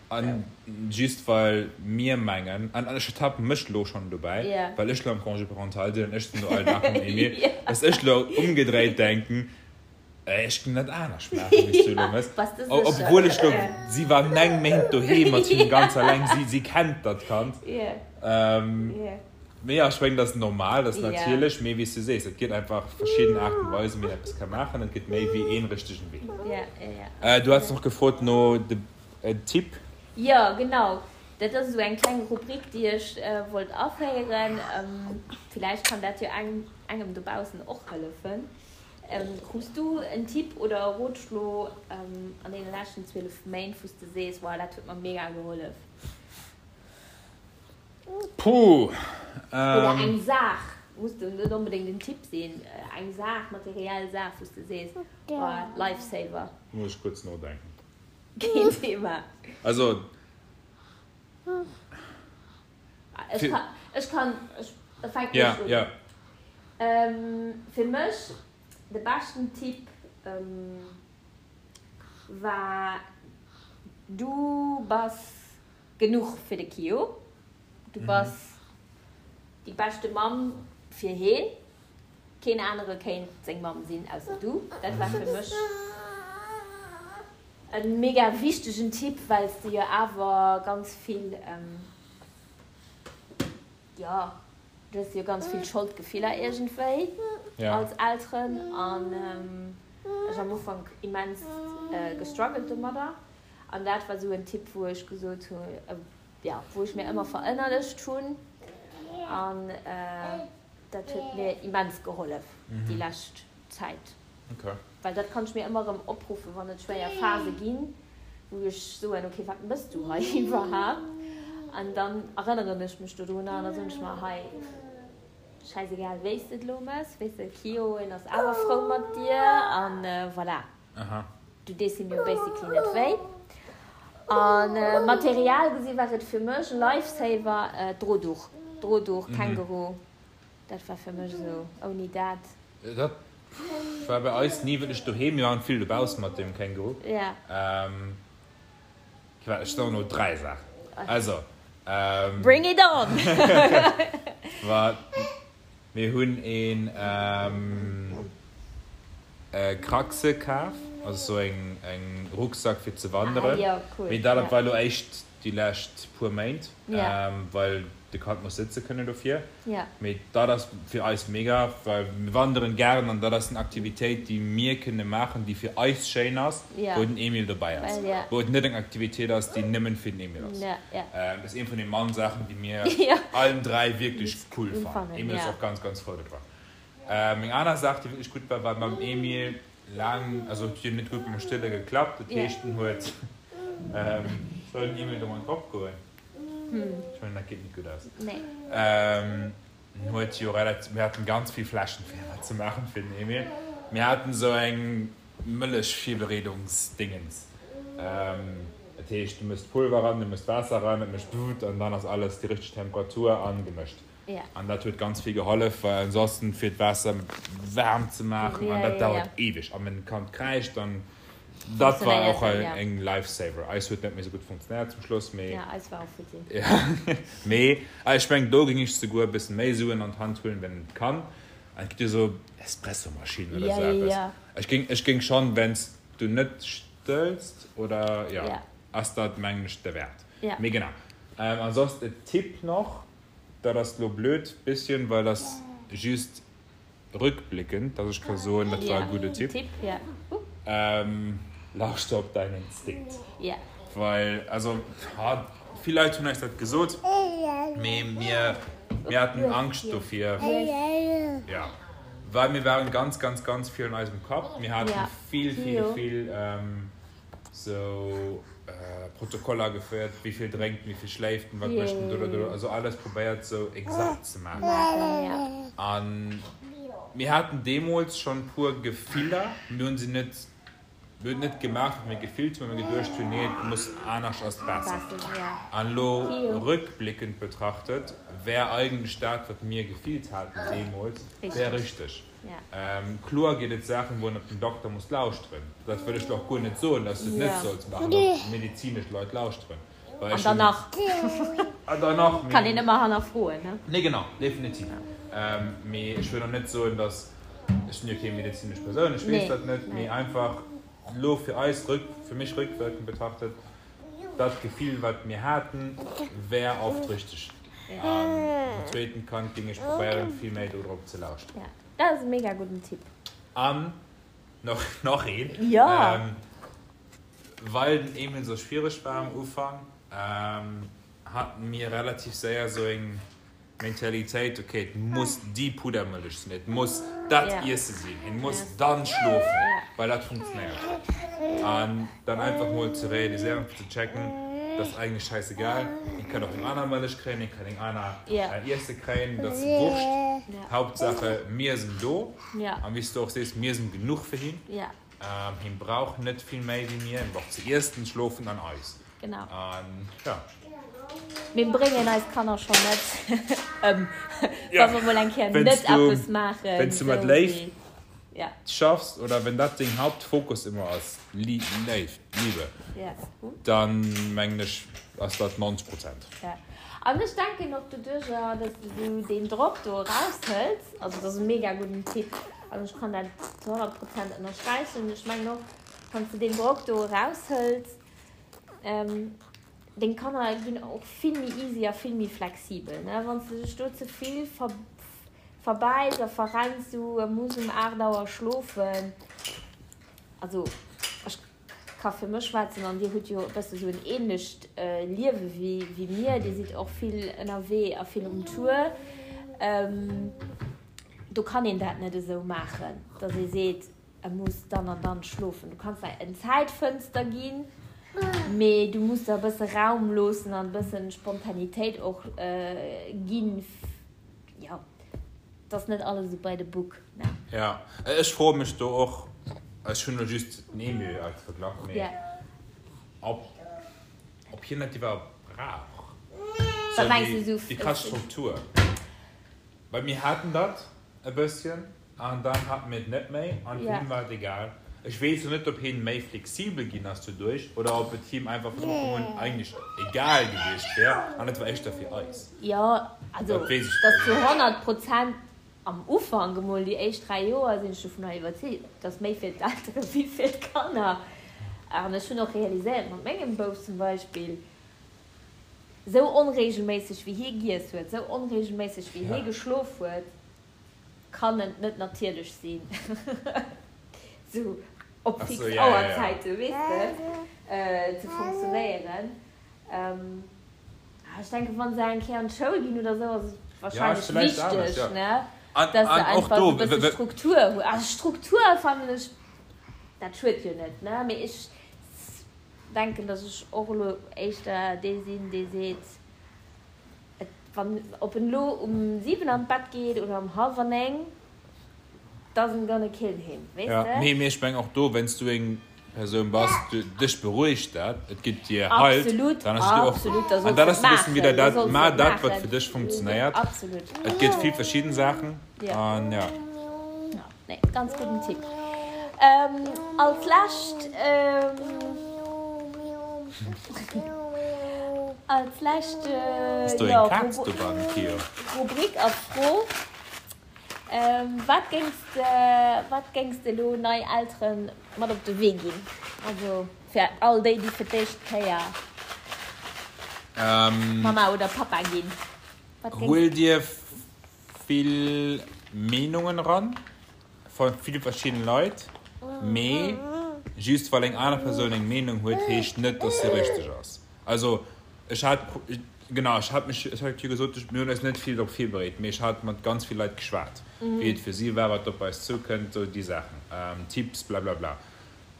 An just well mir mengen, an ech ertappe mech elo schonn dobäi, well ech elo am Congé parental sinn an ech sinn elo all Dag mam Emil, dass ech elo ëmgedréit denken, ech géing dat anescht maachen, wéi s du elo méchs. Obwuel ech elo, si war 9 Méint doheem mat him ganz alleng, si kennt dat Kand. Mee jo, ech mengen, dat ass normal, dat ass natierlech. Mee wéi s du sees, et gëtt einfach verschidden Aarten a Weisen, wéi een eppes ka maachen. Et gëtt méi wéi ee richtegen Wee. Du haats nach gefrot no de Tipp. Jo, genau. Dat ass esou eng kleng Rubrik, déi ech wollt aféieren. Villäicht kann dat jo engem dobaussen och hëllefen. Krus du en Tipp oder e Rotschlo an deene leschten 12 Méint, wou s de sees, Wow, dat huet mer mega gehollef? Puh. Oder eng Saach, muss net onbedéngt en Tipp sinn, eng Saach, materiell Saach, wou s de sees, oh, Lifesaver. Muss ech kuerz nodenken. Keen Thema. Also. Ech kann, ech kann, ech fänken ech un. Ja, ja. Fir mech de beschten Tipp war, du bass Genuch fir de Kio. Du bass déi beschte Mamm fir heen. Keen anere kéint seng Mamm sinn ausser du. Dat war fir mech e mega wichtegen Tipp, well s de jo awer ganz vill, jo, du hues jo ganz vill Scholdgefiller iergendwéi als Elteren an ech am Ufank immens gestruggelt domadder. An dat war esou en Tipp, wou ech gesot hunn, jo, wou ech mir ëmmer verënnerlecht hunn. An dat huet mir immens gehollef déi lescht Zäit. Well dat kann ech mir ëmmer erëm opruffen, wann et schwéier Phase ginn, wou ech soen, okay, wat mëss du hei iwwerhaapt? An dann erënneren ech mech dodrunner an da soen ech mer, hei, schäisegal wéi s de et elo mëss, weess de, Kio, en ass awer frou mat dir an voilà. Du dees him jo basically net wéi. An Material gesi war et fir mech e Lifesaver, Drohduch, Drohduch, Känguru, dat war fir mech esou, ouni dat. Dat war bei eis ni wierklech doheem, mir waren vill dobausse mat dem Känguru. Ja. Ech soen elo 3 Saachen. Also. Bring it on! Wat? Mir hunn een Kraxe kaf, also sou eng Rucksack fir ze wanderen. Mee dat war elo éischt déi lescht puer Méint, well de Kand muss sëtze kënnen dofir. Mee dat ass fir eis mega, well mir wanderen gären an dat ass eng Aktivitéit, déi mir kënne maachen, déi fir eis schéin ass, wou den Emil dobäi ass, wou et net eng Aktivitéit ass, déi nëmmen fir den Emil ass. Dat ass een vun de mann Saachen, déi mir allen 3 wierklech cool fannen. Emil ass och ganz, ganz frou dodrun. Meng aner Saach, déi wierklech gutt war, war mam Emil laang, also et huet jo net gutt mam Stëlle geklappt, dat heescht en huet, soll den Emil do mat drop goen? Ech mengen dat geet net gutt aus. En huet jo relativ, mir haten ganz vill Fläschen fir dat ze maachen fir den Emil. Mir haten esou eng Mëllechvirbereedungsdingens. Dat heescht du mëss d'Pulver ran, du mëss d'Waasser ran, et mécht wut an dann ass alles déi richteg Temperatur an gemëscht. An dat huet ganz vill gehollef, well ansonsten fir d'Waasser waarm ze maachen an dat dauert eweg an wenn d'Kand kräischt dann dat war och eng Lifesaver. Eis huet net méi sou gutt funktionéiert zum Schluss, mee Ja, eis war och futti. Mee ech mengen do géing ech souguer e bëssen méi Suen an d'Hand huelen, wenn et kann. An et gëtt jo sou Espressomaschinen oder sou eppes. Ech géing ech géing schonn, wenn s du net stëlls oder jo, ass dat mengen ech derwäert. Mee genau. Ansonsten e Tipp nach, Dat ass lo blöd bisschen, well ass just rückblickend, dass ech ka soen, dat war e gudde Tipp. Lauschter op däin Instinkt. Well, also, vill Leit hunn eis dat gesot, mee mir, mir haten Angscht dofir, jo, well mir waren ganz, ganz, ganz vill an eisem Kapp. Mir haten vill, vill, vill. Sou Protokoller geféiert, wéi vill drénkt en, wéi vill schléift en, wat mécht en, dododdo, also alles probéiert sou exakt ze maachen. An mir haten deemools schonn puer Gefiller, mir hunn se net, mir hunn et net gemaach, wat mir gefillt hunn, well mir geduecht hunn, nee, et muss anescht ass besser. An elo rückblickend betrachtet, wär eigentlech dat, wat mir gefillt haten deemools, wär richteg. Kloer ginn et Saachen, wou een op den Dokter muss lauschteren. Dat wëll ech lo och guer net soen, dass du et net solls maachen, op medezinesch Leit lauschteren. Well ech hunn. An dann nach. Kann een ëmmer hannerfroen, ne? Nee, genau, definitiv. Mee ech wëll och net soen, dass, ech sinn jo keng medezinesch Persoun, ech weess dat net, mee einfach lo fir eis, fir mech rückwirkend betrachtet, Dat Gefill wat mir haten wär oft richteg. An beim zweeten Kand ging ech probéieren vill méi do drop ze lauschteren. Ja, dat ass e mega gudden Tipp. An nach nach een. Jo. Well den Emil sou schwiereg war am Ufank, haten mir relativ séier sou eng Mentalitéit, ok, et muss déi Puddermëllech sinn, et muss dat Iesse sinn, hien muss dann schlofen, well dat funktionéiert huet. An dann einfach mol ze realiséieren, fir ze checken, dat ass eigentlech schäissegal, hien kann och eng aner Mëllech kréien, hien kann eng aner Iesse kréien, dat ass Wurscht, Hauptsache mir sinn do an wéi s du och sees, mir sinn genuch fir hien, hien brauch net vill méi wéi mir, hien brauch ze iessen, schlofen an eis. Genau. An ja. Mir bréngen eis Kanner schonn net ëm, wa mer mol eng Kéier net eppes maachen. Wenn s du mat Léift schaffs oder wenn dat deng Hauptfokus ëmmer ass, Léift, Liebe, dann mengen ech ass dat 90 Prozent. Ja. An ech denken och doduercher, dass de sou deen Drock do eraushëls, also dat ass e mega gudden Tipp an ech kann dat zu 100 Prozent ënnersträichen. Ech mengen och, wann s de deen Drock do eraushëls, Deng Kanner ginn och vill méi easy a vill méi flexibel, ne? Wann s de dech do ze vill verbäiss a verrenns, du muss um 8 Auer schlofen. Also ech ka fir mech schwätzen an dir hutt jo e bësse sou en ähnlecht Liewe wéi mir, dir sidd och vill ënnerwee a vill um Tour. Do kann een dat net esou maachen, datt ee seet, E muss dann an dann schlofen. Du kanns der en Zäitfënster ginn, mee du muss der e bësse Raum loossen an e bëssen Spontanitéit och ginn. Jo, et ass net alles esou by the book, ne? Jo, ech froe mech do och, ech hunn elo just den Emil als Verglach, mee ob ob hien dat iwwerhaupt brauch, Wat mengs du esou? Déi krass Struktur. Well mir haten dat e bësschen. An dann haten mir et net méi an fir hien war et egal. Ech weess lo net, ob hien méi flexibel ginn ass doduerch oder ob et him einfach vun Ufank un eigentlech egal gewiescht wär an et war éischter fir eis. Jo, also Dat weess ech dass zu 100 Prozent am Ufank emol, déi éischt 3 Joer, sinn ech dovunner iwwerzeegt, et ass méi fir d'Eltere wéi fir d'Kanner. An ech hunn och realiséiert mat mengem Bouf zum Beispill, esou onregelméisseg wéi hie giess huet, esou onregelméisseg wéi hie geschlof huet, kann et net natierlech sinn, sou op fix Auerzäite, weess de, ze funktionéieren. Ech denken, wa se eng Kéier an d'Schoul ginn oder sou, ass et warscheinlech wichteg, ne, dass se einfach sou e bësse Struktur hunn. Also Struktur fannen ech, dat schued jo net, ne, mee ech denken, dass ech och elo éischter dee sinn, dee seet, Et wann, ob en elo um 7 an d'Bett geet oder um hallwer 9, doesn't gonna kill him, weess Ja, de? mee, mee ech mengen och do, wann s du eng Persoun bass, du, dech berouegt dat, et gëtt dir Halt, Absolut, dann ass et dir och absolut, da An solls dat de ass et e bëssen maachen, wieder da dat, solls de mar et dat, wat maachen. fir dech funktionéiert. Absolut. Et gëtt vill verschidden Saachen Ja. an ja. Ja, nee, ganz gudden Tipp. Als lescht, als lescht, Ass do eng Kaz dobannen, Kio? Rubrik a Fro, Wat géings de, wat géings de elo nei Eltere mat op de Wee ginn? Also fir all déi, déi fir d'éischt Kéier Mamma oder Pappa ginn. Wat géings. Huel dir vill Meenungen eran vu ville verschiddene Leit, mee just well eng aner Persoun eng Meenung huet, heescht net, dass se richteg ass. Also ech hat, genau, ech hat mech, ech hat jo gesot, mir hunn eis net vill drop virbereet, mee ech hat mat ganz vill Leit geschwat, wéi et fir si war, wat op eis zoukënnt, sou déi Saachen, Tipps, blablabla.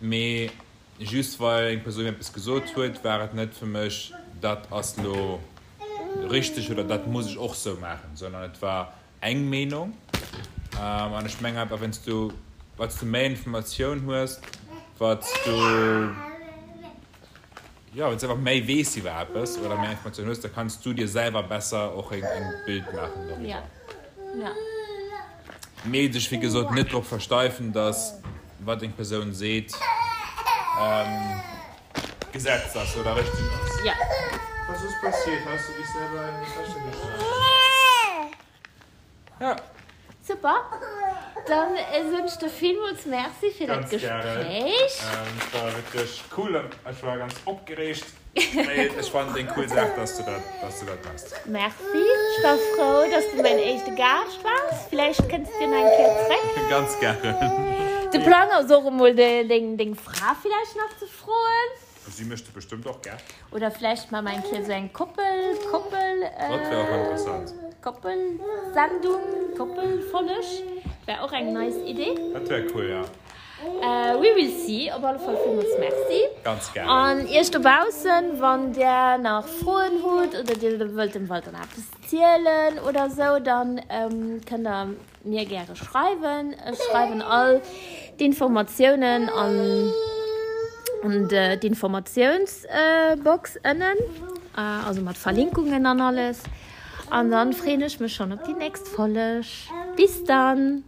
Mee Just well eng Persoun eppes gesot huet, war et net fir mech, dat ass lo richteg oder dat muss ech och sou maachen, sondern et war eng Meenung. An ech mengen einfach, wann s du, wat s du méi Informatioun hues, wat s du, jo, wann s du einfach méi weess iwwer eppes oder méi Informatioun hues, da kanns du dir selwer besser och en Bild maachen doriwwer. Mee sech wéi gesot net drop versteifen, dass wat eng Persoun seet Gesetz ass oder richteg ass. Ja. Was ist passiert? Hast du dich selber in die Tasche geschlagen? Ja. Super. Dann soen ech der villmools Merci fir dat Ganz gären. Gespréich. Et war wierklech cool. Ech war ganz opgereegt. Mee ech fannen et eng cool Saach, dass du dat, dass du dat machs. Merci, ech war frou, dass du mäin éischte Gaascht waars. Villäicht kënns du nach eng Kéier zréck. Ganz gären. De Plang ass och emol deng, deng Fra villäicht nach ze froen. Si mécht et bestëmmt och gär. Oder villäicht maache mer eng Kéier esou eng Koppel, Koppel, Dat wär och interessant. Koppelsendung, Koppelfolleg. Wär och eng nice Idee. Dat wär cool, ja. We will see. Op alle Fall villmools Merci. Ganz gären. An iech dobaussen, wann där nach Froen hutt oder dir wëllt dem Walter nach eppes zielen oder sou, dann kënnt der mir gäre schreiwen. Ech schreiwen all d'Informatiounen an d'Informatiounsbox ënnen, also mat Verlinkungen an alles. An dann freeën ech mech schonn op déi nächst Folleg. Bis dann!